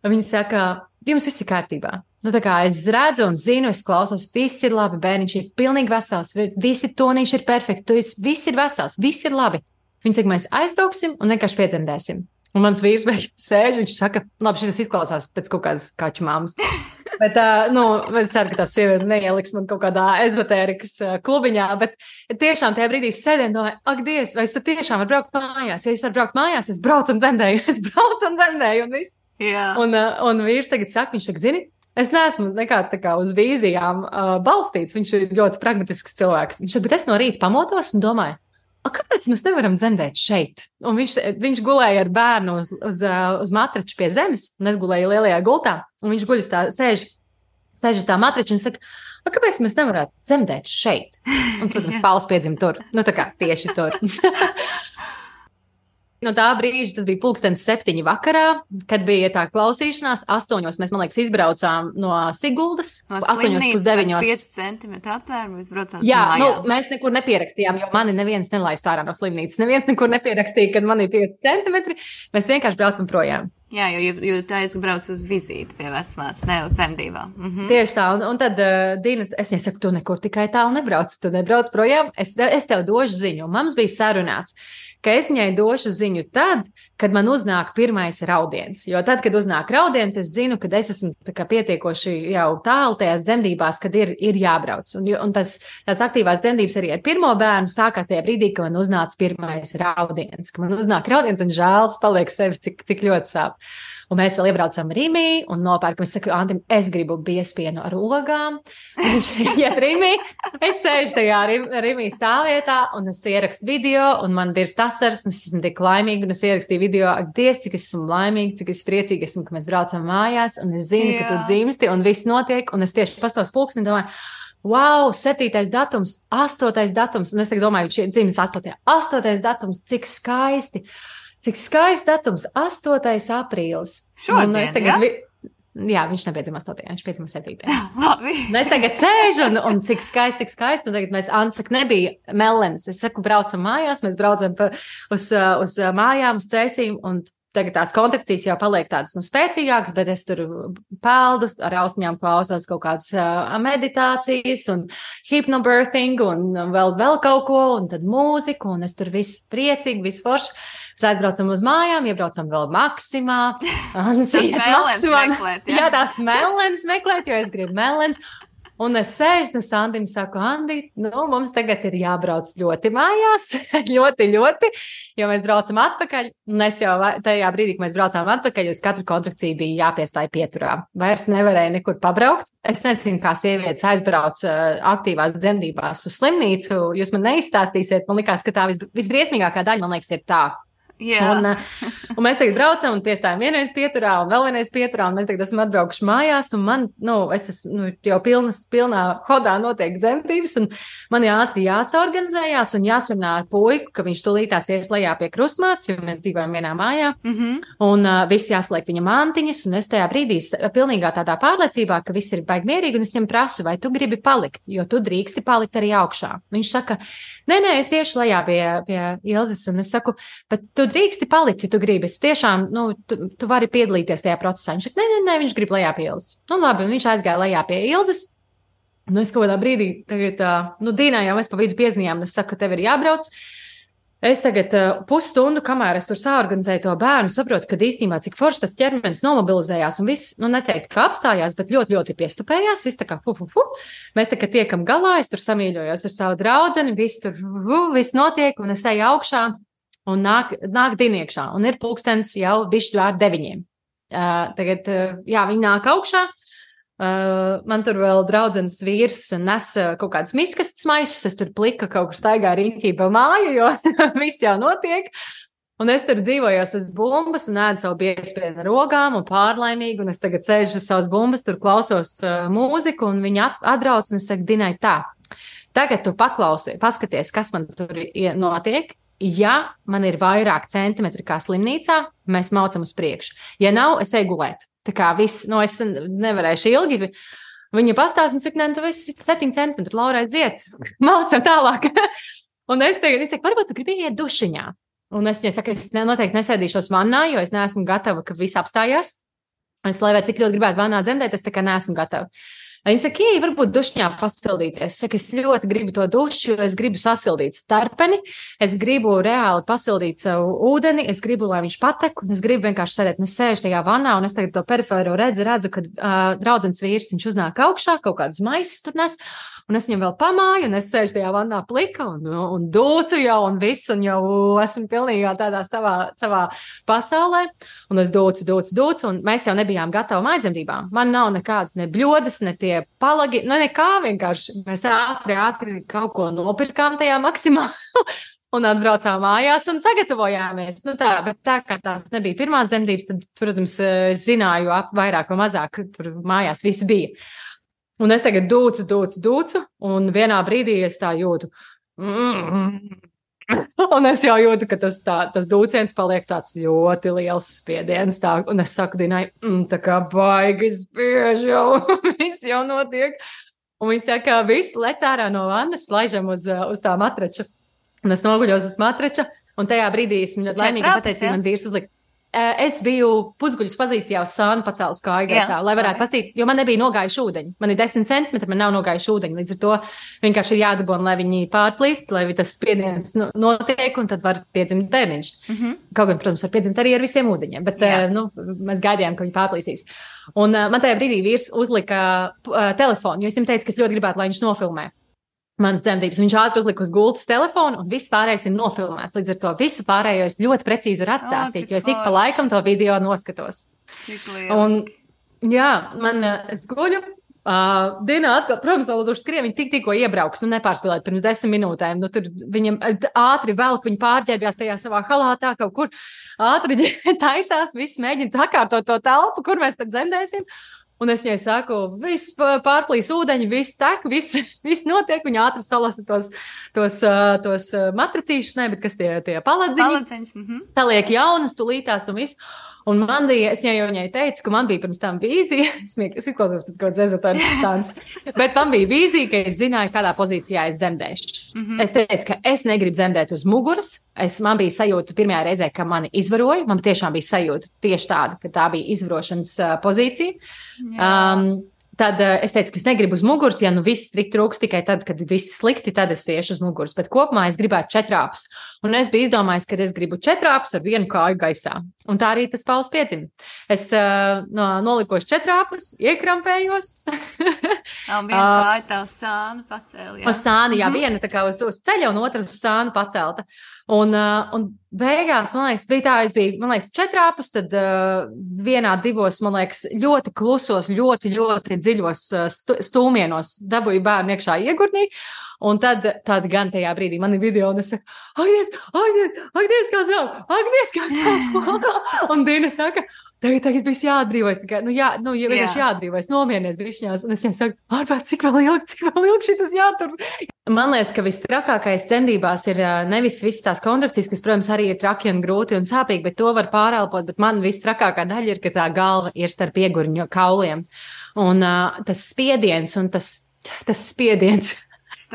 Un viņi saka, jums viss ir kārtībā. Tā kā es redzu un zinu, es klausos, viss ir labi, bērniņš ir pilnīgi vesels, visi tonīši ir perfekti, viss ir vesels, viss ir labi. Viņi saka, mēs aizbrauksim un vienkārši piedzemdēsim. Un mans vīrs sēž, viņš saka, labi, šis izklausās pēc kaut kādas kaķu māmas. Bet, es ceru, ka tās sievietes neieliks man kaut kādā ezotērikas klubiņā, bet tiešām tajā brīdī sēdēju un domāju, ak, Dievs, vai es patiešām varu braukt mājās? Ja es varu braukt mājās, es braucu un dzemdēju, un viss. Yeah. Un vīrs tagad saka, viņš saka, zini, Es neesmu nekāds tā kā uz vīzijām balstīts. Viņš ir ļoti pragmatisks cilvēks. Viņš saka, bet es no rīta pamodos un domāju, kāpēc mēs nevaram dzemdēt šeit? Un viņš gulēja ar bērnu uz matrača pie zemes, un es gulēju lielajā gultā, un viņš guļ uz tā, sēž uz tā matrača un saka, kāpēc mēs nevarētu dzemdēt šeit? Un, protams, Pauls piedzima tur. Nu, tā kā tieši tur. No tā brīža, tas bija 7:00 vakarā, kad bija tā klausīšanās. 8:00 mēs, man liekas, izbraucām no Siguldas. No 8:09. 5 centimetru aptvērumu izbraucām. Jā, mēs nekur nepierakstījām, jo mani neviens nelaist ārā no slimnīcas. Neviens nekur nepierakstīja, kad man ir 5 centimetri. Mēs vienkārši braucam projām. Jā, jo tu aizbrauc uz vizīti pie vecmātes, ne uz dzemdībām. Tieši tā, un tad Dina, es nesaku, tu nekur tikai tālu nebrauc, tu nebrauc projām, es tev došu ziņu. Un mums bija sarunāts, ka es viņai došu ziņu tad, kad man uznāk pirmais raudiens. Jo tad, kad uznāk raudiens, es zinu, ka es esmu pietiekoši jau tālu tajās dzemdībās, kad ir jābrauc. Un tās aktīvās dzemdības arī ar pirmo bērnu sākās tajā brīdī, ka man uznāca pirmais raudiens. Ka man uznāk raudiens un žēls paliek sevis, cik ļoti sāp. Un mēs vēl iebraucam Rimī un nopērkam. Es saku, Antim, es gribu biespienu ar ogām. Viņš iet Rimī. Es sēžu tajā Rimī stāvvietā un es ierakstu video un man dirst asaras un es esmu tik laimīga un es ierakstīju video. Ak, Dievs, cik es esmu laimīga, cik es priecīga esmu, ka mēs braucam mājās un es zinu, ka tu dzimsti un viss notiek. Un es tieši pastos pulksteni domāju, wow, 7. datums, 8. datums. Un es tagad domāju, šī dzimis 8. 8. datums, cik skaisti. Cik skaists datums, 8. aprīlis. Šodien, tagad, jā, viņš nepiedzima 8. viņš piedzima 7. Labi. Un es tagad sēžu un cik skaisti. Un tagad mēs, Anna saka, nebija melens. Es saku, braucam mājās, mēs braucam uz mājām, uz cēsīm, un tagad tās kontrakcijas jau paliek tādas spēcīgākas, bet es tur peldu, ar austiņām klausos kaut kādas meditācijas un hypnobirthing un vēl kaut ko, un tad mūziku, un es tur viss priecīgi, viss forši. Mēs aizbraucam uz mājām, iebraucam vēl Maksimā. Jā, tās melens meklēt, jo es gribu melens. Un es sēžu, un Andim saku, Andi, mums tagad ir jābrauc ļoti mājās, ļoti, jo mēs braucam atpakaļ, un es jau tajā brīdī, kad mēs braucām atpakaļ, uz katru kontrakciju bija jāpiestāj pieturā. Vairs nevarēja nekur pabraukt. Es nezinu, kā sievietes aizbrauc aktīvās dzemdībās uz slimnīcu, jūs man neizstāstīsiet, man likās, ka tā visbriesmīgākā daļa, man liekas, ir tā. Un mēs tagad braucam un piestājam vienreiz pieturā un vēl vienreiz pieturā, un mēs tagad esam atbraukuši mājās, un man, es esmu jau pilnā hodā notiek dzemdības, un man ātri jāsaorganizējās un jāsarunā ar puiku, ka viņš tūlītās ies lejā pie krustmātes, jo mēs dzīvojam vienā mājā, un visi jāsliek viņa mantiņas, un es tajā brīdī pilnīgā tādā pārliecībā, ka viss ir baigi mierīgi, un es viņam prasu, vai tu gribi palikt, jo tu drīksti palikt arī augšā. Viņš saka, nē, es iešu lejā pie Ilzes, un es saku, bet tu drīksti palikt, ja tu gribi. Es tiešām, tu vari piedalīties tajā procesā. Viņš saka, nē, viņš grib lejā pie Ilzes. Labi, un viņš aizgāja lejā pie Ilzes. Es kaut kādā brīdī, tagad, Dīnā jau mēs pa vidu piezinājām, un es saku, ka tev ir jābrauc. Es tagad pusstundu, kamēr es tur saorganizēju to bērnu, saprotu, ka īstenībā cik forši tas ķermenis nomobilizējās un viss, neteikt, ka apstājās, bet ļoti, ļoti piestupējās, viss tā kā fu. Mēs tā kā tiekam galā, es tur samīļojos ar savu draudzeni, viss notiek, un es eju augšā. Un nāk Diniekšā, un ir pulkstens jau bišķi ar 9. Tagad, viņi nāk augšā, man tur vēl draudzenes vīrs nes kaut kādas miskastes maisus, es tur plika kaut kur staigā riņķī pa māju, jo viss jau notiek. Un es tur dzīvojos uz bumbas un ēdu savu biespienu ar ogām un pārlaimīgi, un es tagad sēžu uz savas bumbas, tur klausos mūziku, un viņi atbrauc, un es saku, Dinai, tā, tagad tu paskaties, kas man tur notiek. Ja man ir vairāk centimetri kā slimnīcā, mēs maucam uz priekšu. Ja nav, es eju gulēt. Tā kā viss, es nevarēšu ilgi. Viņa pastāsta un saka, nē, tu esi 7 centimetri, Laura, aiziet. Maucam tālāk. Un es saku, varbūt tu gribi iet dušiņā. Un es saku, es noteikti nesēdīšos vannā, jo es neesmu gatava, ka viss apstājās. Es, lai vai cik ļoti gribētu vannā dzemdēt, es tā kā neesmu gatava. Viņa saka, varbūt dušņā pasildīties. Es saku, es ļoti gribu to dušu, jo es gribu sasildīt starpeni, es gribu reāli pasildīt savu ūdeni, es gribu, lai viņš patek, un es gribu vienkārši sēdēt, un es sēžu tajā vannā, un es tagad to perifēro redzu, kad draudzenes vīrs, viņš uznāk augšā, kaut kādus maisus tur nes, un es viņam vēl pamāju, un es sēžu tajā vannā plika, un dūcu jau, un visu, un jau esmu pilnīgā tādā savā pasaulē, un es dūcu, un mēs jau nebijām gatavi maidzemdībām. Man nav nekādas ne bļodas, ne tie palagi, nekā vienkārši. Mēs ātri kaut ko nopirkām tajā maksimā. Un atbraucām mājās un sagatavojāmies. Bet tā kā tās nebija pirmās dzemdības, tad, protams, zināju vairāk vai mazāk, tur mājās viss bija. Un es tagad dūcu, un vienā brīdī es tā jūtu. Un es jau jūtu, ka tas dūciens paliek tāds ļoti liels spiediens. Un es saku Dinai, tā kā baigi spiež jau, viss jau notiek. Un viņš saka, viss lec ārā no vannas, laižam uz tā matrača. Un es noguļos uz matrača, un tajā brīdī esmu ļoti laimīga pateicu, man vīrs uzlika. Es biju pusguļus pozīcijā uz sānu pacēlus kāju gaisā, lai varētu pastīt, jo man nebija nogājuši ūdeņi. Man ir 10 centimetri, man nav nogājuši ūdeņi. Līdz ar to vienkārši ir jādabona, lai viņi pārplīst, lai tas spiediens notiek, un tad var piedzimt bērniņš. Kaut gan, protams, var piedzimt arī ar visiem ūdeņiem, bet mēs gaidījām, ka viņi pārplīsīs. Un man tajā brīdī vīrs uzlika telefonu, jo es viņam teicu, ka es ļoti gribētu, lai viņš nofilmē manas dzemdības. Viņš ātri uzlika uz gultas telefonu, un viss pārējais ir nofilmēts. Līdz ar to visu pārējo es ļoti precīzi varu atstāstīt, jo es ik pa laikam to video noskatos. Cik lieliski. Un, es guļu. Dienā atkal, protams, vēl tur skrien, viņi tikko iebrauks, nepārspēlēt pirms 10 minūtēm. Tur viņam ātri velk, viņi pārģērbjās tajā savā halātā, kaut kur ātri taisās, viss mēģina sakārtot to telpu, kur mēs tad dzemdēsim. Un es viņai saku, viss pārplīs ūdeņi, viss tek, viss notiek. Viņa ātri salasa tos matracīšus, bet kas tie paladziņi. Saliek jaunas, tulītās un viss. Un es viņai teicu, ka man bija pirms tam vīzija, es izklausos pēc kaut kāds ezotārs stāns, bet man bija vīzija, ka es zināju, kādā pozīcijā es dzemdēšu. Es teicu, ka es negribu dzemdēt uz muguras. Man bija sajūta pirmajā reizē, ka mani izvaroja. Man tiešām bija sajūta tieši tāda, ka tā bija izvarošanas pozīcija. Tad es teicu, ka es negribu uz muguras, ja viss trūks tikai tad, kad viss slikti, tad es iešu uz muguras. Bet kopumā es gribētu 4 āpus. Un es biju izdomājis, ka es gribu 4 āpus ar 1 kāju gaisā. Un tā arī tas Pauls piedzima. Es nolikos 4 āpus, iekrampējos. Un viena kāja tā uz sānu pacēla. Uz sānu, viena tā kā uz ceļa un otra uz sānu pacelta. Un beigās, man liekas, bija tā, es biju, 4 āpus, tad vienā 2, man liekas, ļoti klusos, ļoti dziļos stūmienos dabūju bērnu iekšā iegurnī. Un tad gan tajā brīdī man ir video, un es saku, Agnies, kā sāp. Un Dina saka, tagad viss jāatbrīvojas. Vienkārši jāatbrīvojas, nomierinies bišķiņās. Un es viņai saku, ārpēc, cik vēl ilgi šitas jātur. Man liekas, ka vistrakākais dzemdībās ir nevis visas tās kontrakcijas, kas, protams, arī ir traki un grūti un sāpīgi, bet to var pārelpot. Bet man vistrakākā daļa ir, ka tā galva ir starp iegurņu kauliem. Un tas spiediens un tas spiediens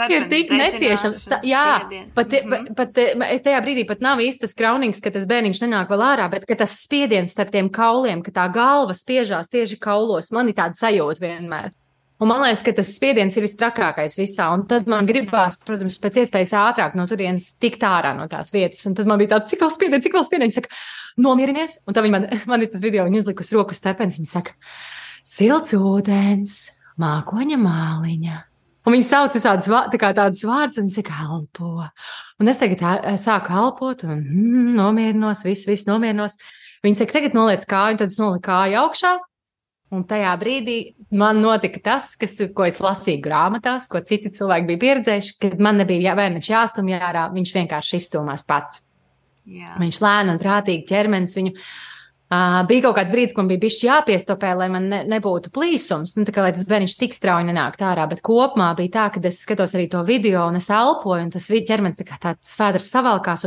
ir tik neciešams. Pat tajā brīdī pat nav īsti tas kraunīgs, ka tas bērniņš nenāk vēl ārā, bet ka tas spiediens starp tiem kauliem, ka tā galva spiežās tieši kaulos, man ir tāda sajūta vienmēr. Un man liekas, ka tas spiediens ir vistrakākais visā, un tad man gribās, protams, pēc iespējas ātrāk no turienes tikt ārā no tās vietas, un tad man bija tāds, cik vēl spiediens, viņa saka, nomierinies, un tad man ir tas video, viņa uzlikus roku stepens, viņa saka, silts ūdens, mākoņa māliņa. Un viņi sauc tādus vārdus, un viņi saka, elpo. Un es tagad sāku elpot, un nomierinos, viss nomierinos. Viņi saka, tagad noliec kāju, un tad es noliku kāju augšā. Un tajā brīdī man notika tas, ko es lasīju grāmatās, ko citi cilvēki bija pieredzējuši, kad man nebija bērniņš jāstumj ārā, viņš vienkārši izstumās pats. Jā. Viņš lēni un prātīgi ķermenis viņu. Bija kaut kāds brīdis, ko man bija bišķi jāpiestopē, lai man nebūtu plīsums, tā kā lai tas bērniņš tik strauji nenākt ārā, bet kopumā bija tā, ka es skatos arī to video un es elpoju, un tas ķermenis tā kā tāds svēdrs savalkās,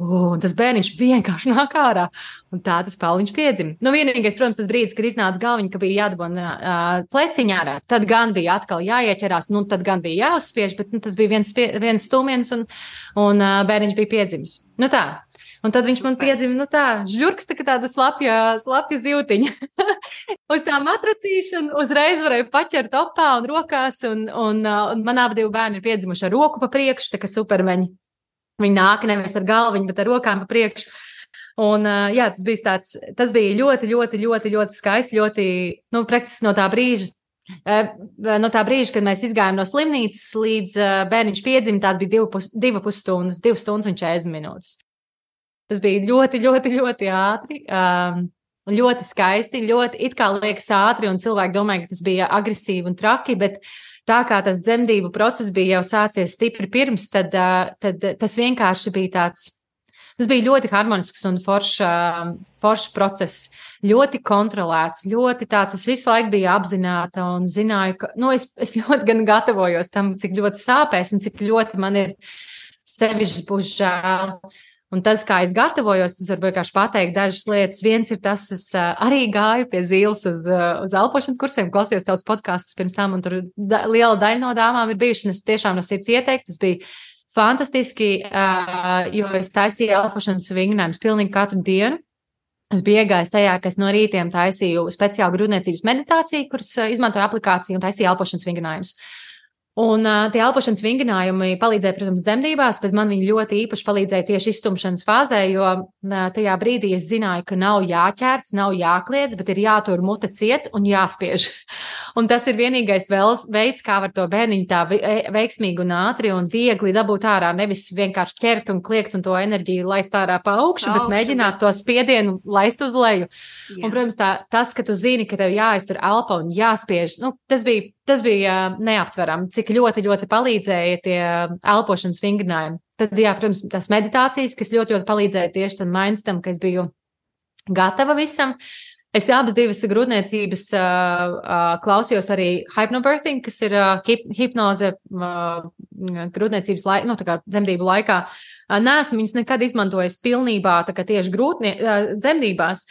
un tas bērniņš vienkārši nāk ārā, un tā tas Pauliņš piedzima. Vienīgais, protams, tas brīdis, kad iznāca galviņa, ka bija jādabona pleciņā ārā, tad gan bija atkal jāieķerās, tad gan bija jāuzspiež, bet tas bija viens stūmiens, un bērniņš bija piedzimis. Tā. Un tad viņš man piedzima, žurks, tāda slapja zivtiņa. Uz tā matracīšana uzreiz varēja paķert opā un rokās, un man abi bērni ir piedzimuši ar roku pa priekšu, tā kā supermeņi. Viņi nāk nevis ar galviņu, bet ar rokām pa priekšu. Un tas bija ļoti skaisti, ļoti, praktiski no tā brīža. No tā brīža, kad mēs izgājām no slimnīcas līdz bērniņš piedzima, tās bija 2,5 stundas, 2 stundas un 40 minūtes. Tas bija ļoti, ļoti, ļoti ātri, ļoti skaisti, ļoti it kā liekas ātri, un cilvēki domāja, ka tas bija agresīvi un traki, bet tā kā tas dzemdību process bija jau sācies stipri pirms, tad tas vienkārši bija tāds. Tas bija ļoti harmonisks un foršs process, ļoti kontrolēts, ļoti tāds, es visu laiku biju apzināta un zināju, ka, es ļoti gan gatavojos tam, cik ļoti sāpēs un cik ļoti man ir sevišķi būs žēl. Un tas, kā es gatavojos, tas var vienkārši pateikt dažas lietas. Viens ir tas, es arī gāju pie Zīles uz elpošanas kursiem, klausījos tavus podkastus pirms tam, un tur liela daļa no dāmām ir bijuši, un es tiešām no sirds ieteiktu, tas bija fantastiski, jo es taisīju elpošanas vingrinājumus pilnīgi katru dienu. Es biju iegājis tajā, ka es no rītiem taisīju speciālu grūtniecības meditāciju, kuras izmantoju aplikāciju un taisīju elpošanas vingrinājumus. Un tie elpošanas vingrinājumi palīdzēja, protams, dzemdībās, bet man viņi ļoti īpaši palīdzēja tieši iztumšanas fāzē, jo tajā brīdī es zināju, ka nav jāķērts, nav jākliedz, bet ir jātur mute ciet un jāspiež. Un tas ir vienīgais veids, kā var to bērniņu tā veiksmīgi un ātri un viegli dabūt ārā, nevis vienkārši ķert un kliegt un to enerģiju laist ārā pa augšu, bet mēģināt to spiedienu laist uz leju. Jā. Un, protams, tas, ka tu zini, ka tev jāiztur elpa un jāspiež, tas bija neaptverami, cik ļoti, ļoti palīdzēja tie elpošanas vingrinājumi. Tad, jā, protams, tās meditācijas, kas ļoti, ļoti palīdzēja tieši tam mainstam, ka es biju gatava visam. Es abas divas grūtniecības klausījos arī hypnobirthing, kas ir hipnoze grūtniecības dzemdību laikā. Neesmu viņas nekad izmantojis pilnībā, tā kā tieši dzemdībās,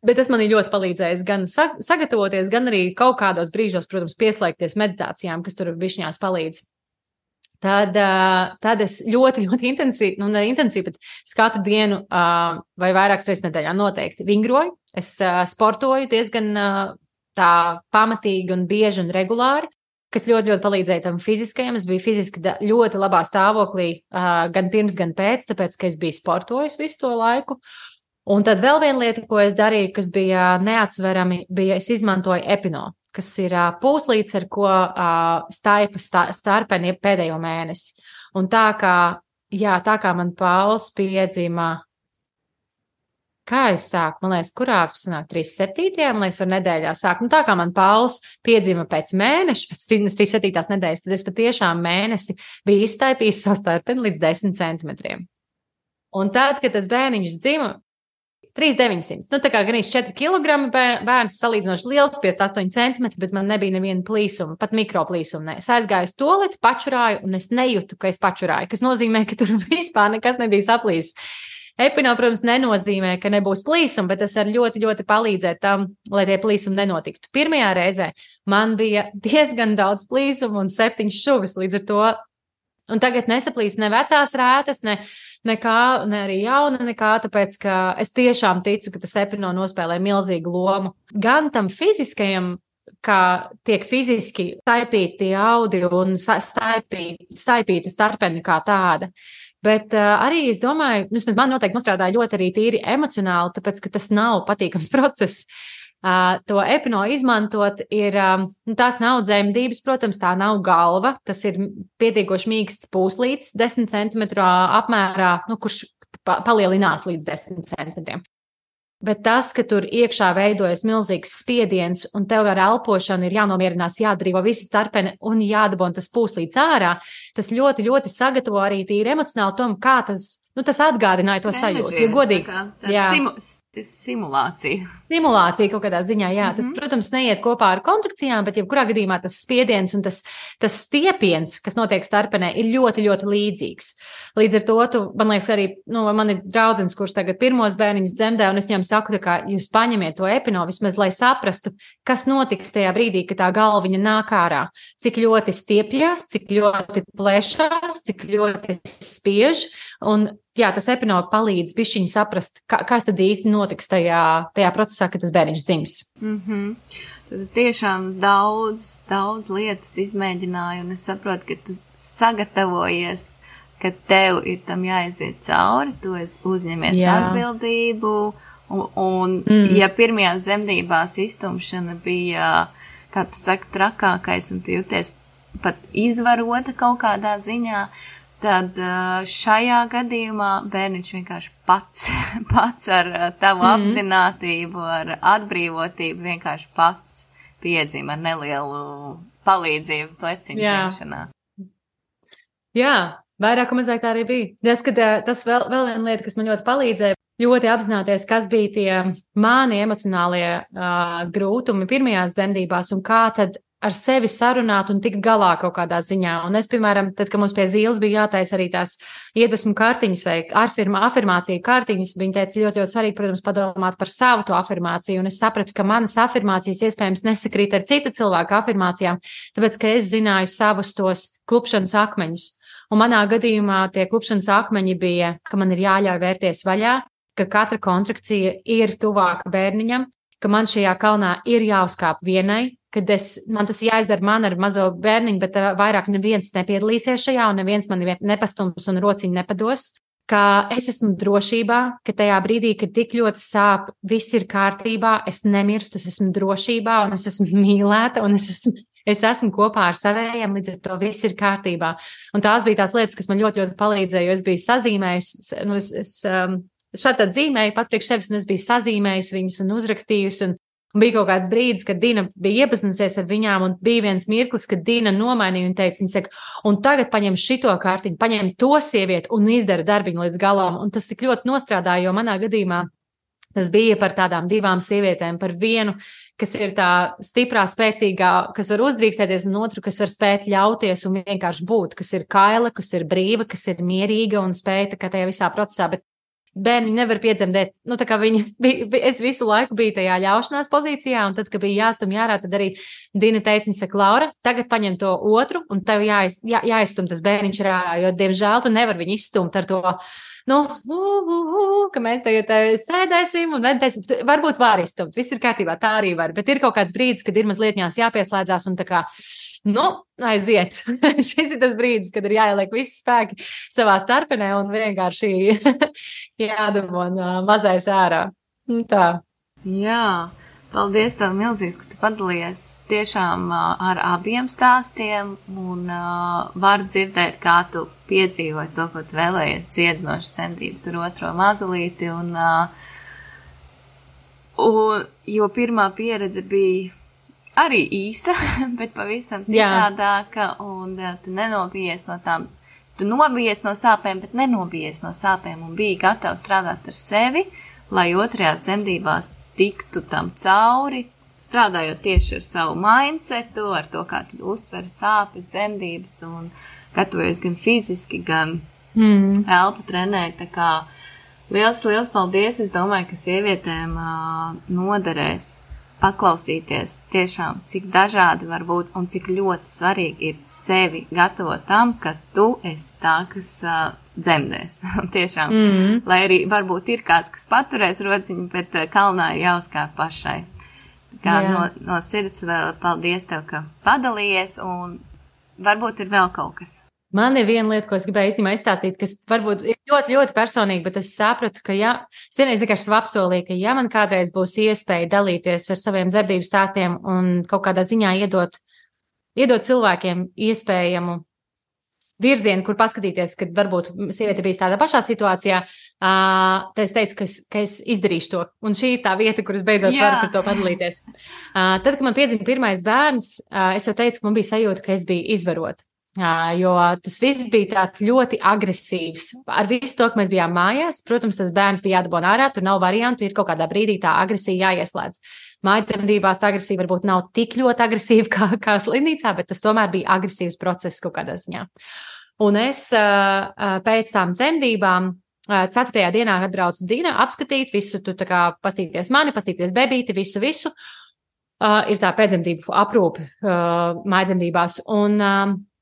bet tas man ir ļoti palīdzējis gan sagatavoties, gan arī kaut kādos brīžos, protams, pieslēgties meditācijām, kas tur bišķiņās palīdz. Tad es ļoti, ļoti intensīvi, bet es katru dienu vai vairākas reizes nedēļā noteikti vingroju. Es sportoju diezgan tā pamatīgi un bieži un regulāri, kas ļoti, ļoti palīdzēja tam fiziskajam. Es biju fiziski ļoti labā stāvoklī gan pirms, gan pēc, tāpēc, ka es biju sportojis visu to laiku. Un tad vēl viena lieta, ko es darīju, kas bija neatsverami, es izmantoju epino, kas ir pūslīts, ar ko staipa starpeni pēdējo mēnesi. Un tā kā man Pauls piedzima, kā es sāku, man liekas, kurā sanāk 37. man liekas, var nedēļā sākt. Tā kā man Pauls piedzima pēc mēneša, pēc 37. nedēļas, tad es patiešām mēnesi biju izstaipījis savu starpeni līdz 10 centimetriem. Un tad, kad tas bērniņš dzima, 3,900. Tā kā gan 4 kilogrami bērns salīdzinoši liels, 58 centimetri, bet man nebija neviena plīsuma, pat mikroplīsuma. Es aizgāju uz toleti, pačurāju, un es nejūtu, ka es pačurāju, kas nozīmē, ka tur vispār nekas nebija saplīsis. Epino, protams, nenozīmē, ka nebūs plīsuma, bet tas var ļoti, ļoti palīdzēt tam, lai tie plīsumi nenotiktu. Pirmajā reizē man bija diezgan daudz plīsumu un 7 šuvis līdz ar to. Un tagad nesaplīst ne vecās rētas, nekā, ne arī jauna nekā, tāpēc, ka es tiešām ticu, ka tas epino nospēlē milzīgu lomu. Gan tam fiziskajam, kā tiek fiziski staipīti audi un staipīta starpeni kā tāda. Bet arī es domāju, vismaz man noteikti nostrādāja ļoti arī tīri emocionāli, tāpēc, ka tas nav patīkams process. To epino izmantot ir, tās nav dzemdības, protams, tā nav galva, tas ir pietiekoši mīksts pūslītis 10 centimetru apmērā, kurš palielinās līdz 10 centimetriem. Bet tas, ka tur iekšā veidojas milzīgs spiediens un tev ar elpošanu ir jānomierinās, jādrīvo visi starpeni un jādabon tas pūslīts ārā, tas ļoti, ļoti sagatavo arī tīri emocionāli tom, kā tas atgādināja to sajūtu. Ja godīgi, simulācija. Simulācija kaut kādā ziņā, jā. Tas, protams, neiet kopā ar kontrakcijām, bet jebkurā gadījumā tas spiediens un tas stiepiens, kas notiek starpenē, ir ļoti, ļoti līdzīgs. Līdz ar to, man liekas, arī, man ir draudzens, kurš tagad pirmos bērniņus dzemdē, un es viņam saku, ka jūs paņemiet to epino vismaz, lai saprastu, kas notiks tajā brīdī, kad tā galviņa nāk ārā. Cik ļoti stiepjas, cik ļoti plešās, cik ļoti spiež, un jā, tas epino palīdz bišķiņi saprast, kas tad īsti notiks tajā procesā, kad tas bērniņš dzims. Tas tiešām daudz lietas izmēģināju, un es saprotu, ka tu sagatavojies, ka tev ir tam jāiziet cauri, tu uzņemies atbildību, un ja pirmajās dzemdībās iztumšana bija, kā tu saki, trakākais, un tu jūties pat izvarota kaut kādā ziņā, tad šajā gadījumā bērniņš vienkārši pats ar tavu apzinātību, ar atbrīvotību vienkārši pats piedzima ar nelielu palīdzību pleciņu dzimšanā. Jā, vairāk un mazāk tā arī bija. Tas vēl viena lieta, kas man ļoti palīdzēja, ļoti apzināties, kas bija tie mani emocionālie grūtumi pirmajās dzemdībās un kā tad ar sevi sarunāt un tikt galā kaut kādā ziņā. Un es, piemēram, tad, kad mums pie Zīles bija jātaisa arī tās iedvesmu kartiņas vai afirmāciju kartiņas, viņa teica ļoti, ļoti svarīgi, protams, padomāt par savu to afirmāciju. Un es sapratu, ka manas afirmācijas iespējams nesakrīt ar citu cilvēku afirmācijām, tāpēc, ka es zināju savus tos klupšanas akmeņus. Un manā gadījumā tie klupšanas akmeņi bija, ka man ir jāļauj vērties vaļā, ka katra kontrakcija ir tuvāka bērniņam, ka man šajā kalnā ir jāuzkāp vienai, kad man tas jāizdara man ar mazo bērniņu, bet vairāk neviens nepiedalīsies šajā un neviens mani nepastums un rociņu nepados, ka es esmu drošībā, ka tajā brīdī, kad tik ļoti sāp, viss ir kārtībā, es nemirstu, es esmu drošībā un es esmu mīlēta un es esmu kopā ar savējiem, līdz ar to viss ir kārtībā. Un tās bija tās lietas, kas man ļoti, ļoti palīdzēja, jo es biju sazīmējusi, šādi zīmēju pat priekš sevis, un es biju sazīmējusi viņus un uzrakstījusi, un bija kaut kāds brīdis, kad Dina bija iepazinusies ar viņām, un bija viens mirklis, kad Dina nomainīja un teica, viņa saka, un tagad paņem šito kārtiņu, paņem to sievieti un izdara darbiņu līdz galam, un tas tik ļoti nostrādāja, jo manā gadījumā tas bija par tādām divām sievietēm, par vienu, kas ir tā stiprā, spēcīgā, kas var uzdrīkstēties, un otru, kas var spēt ļauties un vienkārši būt, kas ir kaila, kas ir brīva, kas ir mierīga un spēja kā tajā visā procesā, bet bērni nevar piedzemdēt, tā kā es visu laiku biju tajā ļaušanās pozīcijā, un tad, kad bija jāstum jārā, tad arī Dina teica, viņa saka, Laura, tagad paņem to otru, un tev jāizstum tas bērniņš ārā, jo, diemžēl, tu nevar viņu izstumt ar to, ka mēs tagad sēdēsim un vedēsim, varbūt var izstumt, viss ir kārtībā, tā arī var, bet ir kaut kāds brīdis, kad ir mazliet jāpieslēdzās un tā kā, aiziet. Šis ir tas brīdis, kad ir jāieliek visi spēki savā starpenē un vienkārši jādabon mazais ārā. Tā. Jā, paldies tev milzīgs, ka tu padalījies tiešām ar abiem stāstiem un var dzirdēt, kā tu piedzīvoji to, ko tu vēlējies dziedinošas dzemdības ar otro mazulīti. Jo pirmā pieredze bija arī īsa, bet pavisam citādāka, un tu nenobijies no tām, tu nobijies no sāpēm, bet nenobijies no sāpēm un biji gatava strādāt ar sevi, lai otrajās dzemdībās tiktu tam cauri, strādājot tieši ar savu mindsetu, ar to, kā tu uztveri sāpes, dzemdības un gatavojies gan fiziski, gan elpu trenēt, tā kā liels paldies, es domāju, ka sievietēm noderēs paklausīties tiešām, cik dažādi var būt un cik ļoti svarīgi ir sevi gatavot tam, ka tu esi tā, kas dzemdēs. Tiešām, lai arī varbūt ir kāds, kas paturēs rociņu, bet kalnā ir jāuzkāp pašai. Kā no sirds vēl paldies tev, ka padalījies, un varbūt ir vēl kaut kas. Man ir viena lieta, ko es gribēju īstenībā izstāstīt, kas varbūt ir ļoti, ļoti personīgi, bet es sapratu, ka es vienreiz vienkārši apsolīju, ka man kādreiz būs iespēja dalīties ar saviem dzemdību stāstiem un kaut kādā ziņā iedot cilvēkiem iespējamu virzienu, kur paskatīties, kad varbūt sieviete bijis tādā pašā situācijā, tad es teicu, ka es izdarīšu to. Un šī ir tā vieta, kur es beidzot varu par to padalīties. Tad, kad man piedzima pirmais bērns, es jau teicu, ka man bija sajūta, ka es biju izvarota. Jo tas viss bija tāds ļoti agresīvs. Ar visu to, ka mēs bijām mājās, protams, tas bērns bija jādabon ārā, tur nav variantu, ir kaut kādā brīdī tā agresija jāieslēdz. Mājdzemdībās tā agresija varbūt nav tik ļoti agresīva kā slimnīcā, bet tas tomēr bija agresīvs process kaut kādā ziņā. Un es pēc tām dzemdībām 4. dienā atbraucu Dina apskatīt visu, tu tā kā pastīties mani, pastīties bebīti, visu. Ir tā pēcdzemdību aprūpe mājdzemdībās. Un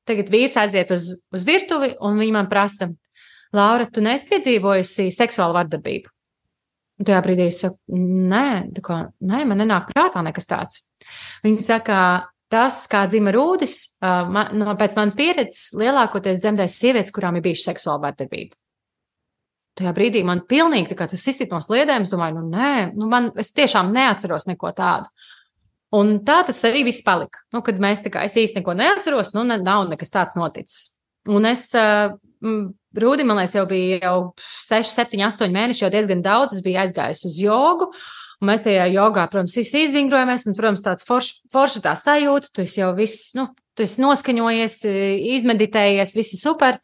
tagad vīrs aiziet uz virtuvi, un viņa man prasa, Laura, tu neesi piedzīvojusi seksuālu vardarbību? Un tajā brīdī es saku, nē, man nenāk prātā nekas tāds. Viņa saka, tas, kā dzima Rūdis, pēc manas pieredzes, lielākoties dzemdēs sievietes, kurām ir bijuši seksuāla vardarbība. Tajā brīdī man pilnīgi tā kā tas izsit no sliedēm, es domāju, es tiešām neatceros neko tādu. Un tā tas arī viss palika. Nu, kad mēs es īsti neko neatceros, nav nekas tāds noticis. Un es, Rūdi, man liekas, jau bija 6, 7, 8 mēneši, jau diezgan daudz. Es biju aizgājusi uz jogu, un mēs tajā jogā, protams, visi izvingrojamies, un, protams, tāds forša tā sajūta, tu esi jau viss, tu esi noskaņojies, izmeditējies, visi super.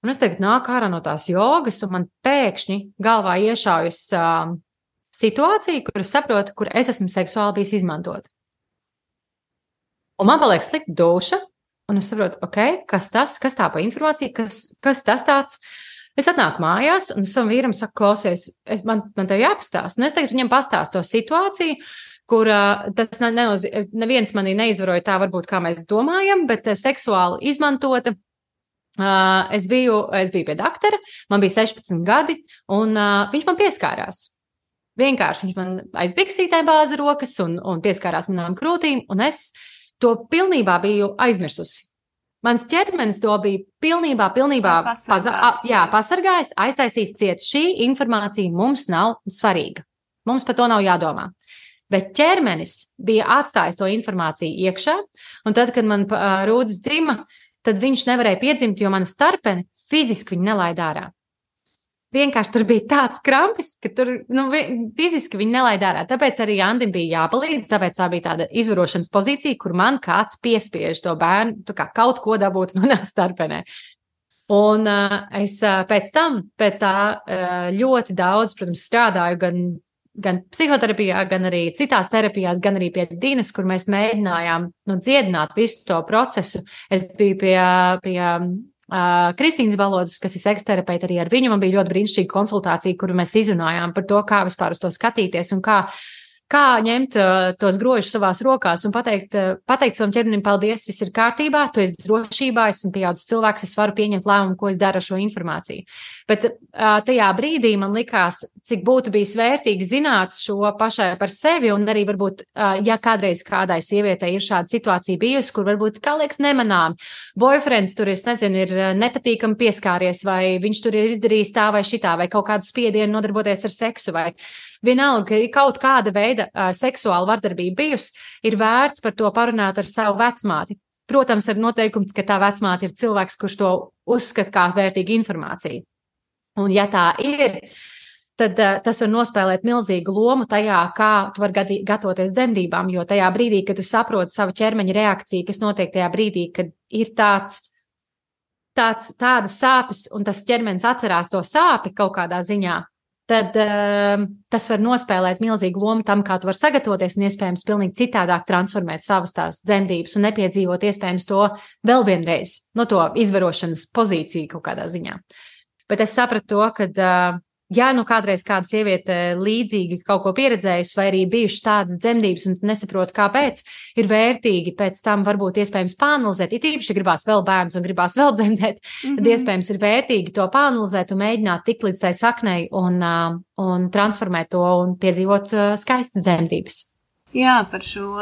Un es tagad nāku ārā no tās jogas, un man pēkšņi galvā iešaujas situācija, kur es saprotu, kur es esmu seksuāli bijis izmantot. Un man paliek slikta duša, un es saprotu, kas tā pa informācija, kas tas tāds. Es atnāku mājās, un savam vīram saku, klausies, man tev jāpastāst. Un es tagad viņam pastāstu to situāciju, kur tas neviens manī neizvaroja tā varbūt, kā mēs domājam, bet seksuāli izmantota. Es biju pie doktora, man bija 16 gadi, un viņš man pieskārās. Vienkārši viņš man aiz biksītē bāza rokas un pieskārās manām krūtīm, un es to pilnībā biju aizmirsusi. Mans ķermenis to bija pilnībā pasargājis, aiztaisījis ciet. Šī informācija mums nav svarīga. Mums par to nav jādomā. Bet ķermenis bija atstājis to informāciju iekšā, un tad, kad man Rūdis dzima, tad viņš nevarēja piedzimt, jo mana starpene fiziski viņu nelaida ārā. Vienkārši tur bija tāds krampis, ka tur fiziski viņi nelaida ārā. Tāpēc arī Andim bija jāpalīdz, tāpēc tā bija tāda izvarošanas pozīcija, kur man kāds piespiež to bērnu, kaut ko dabūt manā starpenē. Un es pēc tā ļoti daudz, protams, strādāju gan psihoterapijā, gan arī citās terapijās, gan arī pie Dinas, kur mēs mēģinājām dziedināt visu to procesu. Es biju pie Kristīnas Balodas, kas ir seksterapeita, arī ar viņu man bija ļoti brīnišķīga konsultācija, kuru mēs izrunājām par to, kā vispār uz to skatīties un kā ņemt tos grožus savās rokās un pateikt savam ķermenim, paldies, viss ir kārtībā, tu esi drošībā, esmu pieaudzis cilvēks, es varu pieņemt lēmumu, ko es daru ar šo informāciju. Bet tajā brīdī man likās, cik būtu bijis vērtīgi zināt šo pašai par sevi, un arī varbūt, ja kādreiz kādai sievietei ir šāda situācija bijusi, kur varbūt, kā liekas, nemanām, boyfriends tur, ir nepatīkami pieskāries, vai viņš tur ir izdarījis tā vai šitā, vai kaut kādu spiedienu nodarboties ar seksu, vai vienalga, ka ir kaut kāda veida seksuāla vardarbība bijusi, ir vērts par to parunāt ar savu vecmāti. Protams, ar noteikums, ka tā vecmāte ir cilvēks, kurš to uzskata kā vērtīgu informāciju. Un ja tā ir, tad tas var nospēlēt milzīgu lomu tajā, kā tu vari gatavoties dzemdībām, jo tajā brīdī, kad tu saproti savu ķermeņa reakciju, kas notiek tajā brīdī, kad ir tādas sāpes, un tas ķermenis atcerās to sāpi kaut kādā ziņā, tad tas var nospēlēt milzīgu lomu tam, kā tu vari sagatavoties un iespējams pilnīgi citādāk transformēt savas tās dzemdības un nepiedzīvot iespējams to vēl vienreiz, no to izvarošanas pozīciju kaut kādā ziņā. Bet es sapratu to, ka, ja kādreiz kāda sieviete līdzīgi kaut ko pieredzējusi vai arī bijuši tādas dzemdības un nesaprot, kāpēc, ir vērtīgi pēc tam varbūt iespējams pāanalizēt, it īpaši gribās vēl bērnus un gribās vēl dzemdēt, tad iespējams ir vērtīgi to pāanalizēt un mēģināt tikt līdz tai saknei un transformēt to un piedzīvot skaistas dzemdības. Jā, par šo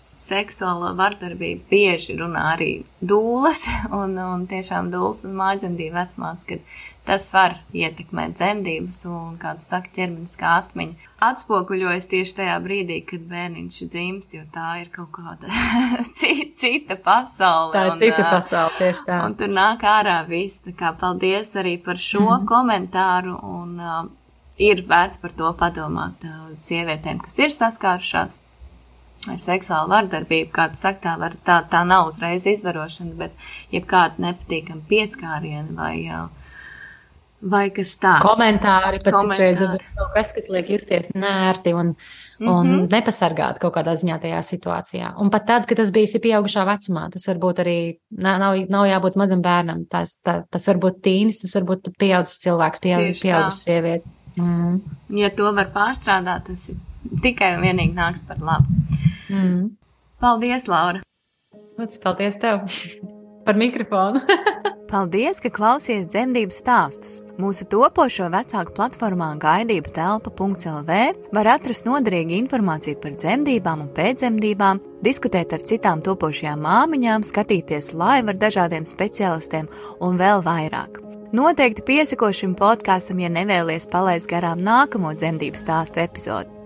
seksuālo vardarbību bieži runā arī dūles un tiešām dūles un mājdzemdību vecmātes, kad tas var ietekmēt dzemdības un, kā tu saki, ķermeniskā atmiņa atspoguļojas tieši tajā brīdī, kad bērniņš dzimst, jo tā ir kaut kāda cita pasaule. Tā ir cita pasaule, tieši tā. Un tur nāk ārā viss, tā kā paldies arī par šo komentāru un ir vērts par to padomāt sievietēm, kas ir saskārušās ar seksuālu vardarbību, kā tu saki, tā nav uzreiz izvarošana, bet jebkāda nepatīkama pieskāriena vai kas tāds. Komentāri, pat citreiz ir kaut kas liek justies nērti un nepasargāt kaut kādā ziņā tajā situācijā. Un pat tad, kad tas bijis pieaugušā vecumā, tas varbūt arī nav jābūt mazam bērnam, tas var būt tīnis, tas var būt pieaudzis cilvēks, pieaudzis sieviete. Ja to var pārstrādāt, tas tikai un vienīgi nāks par labu. Paldies, Laura! Paldies tev par mikrofonu! Paldies, ka klausies dzemdību stāstus! Mūsu topošo vecāku platformā gaidībutelpa.lv var atrast noderīgu informāciju par dzemdībām un pēcdzemdībām, diskutēt ar citām topošajām māmiņām, skatīties live ar dažādiem speciālistiem un vēl vairāk. Noteikti piesako šim podkastam, ja nevēlies palaist garām nākamo dzemdību stāstu epizodu.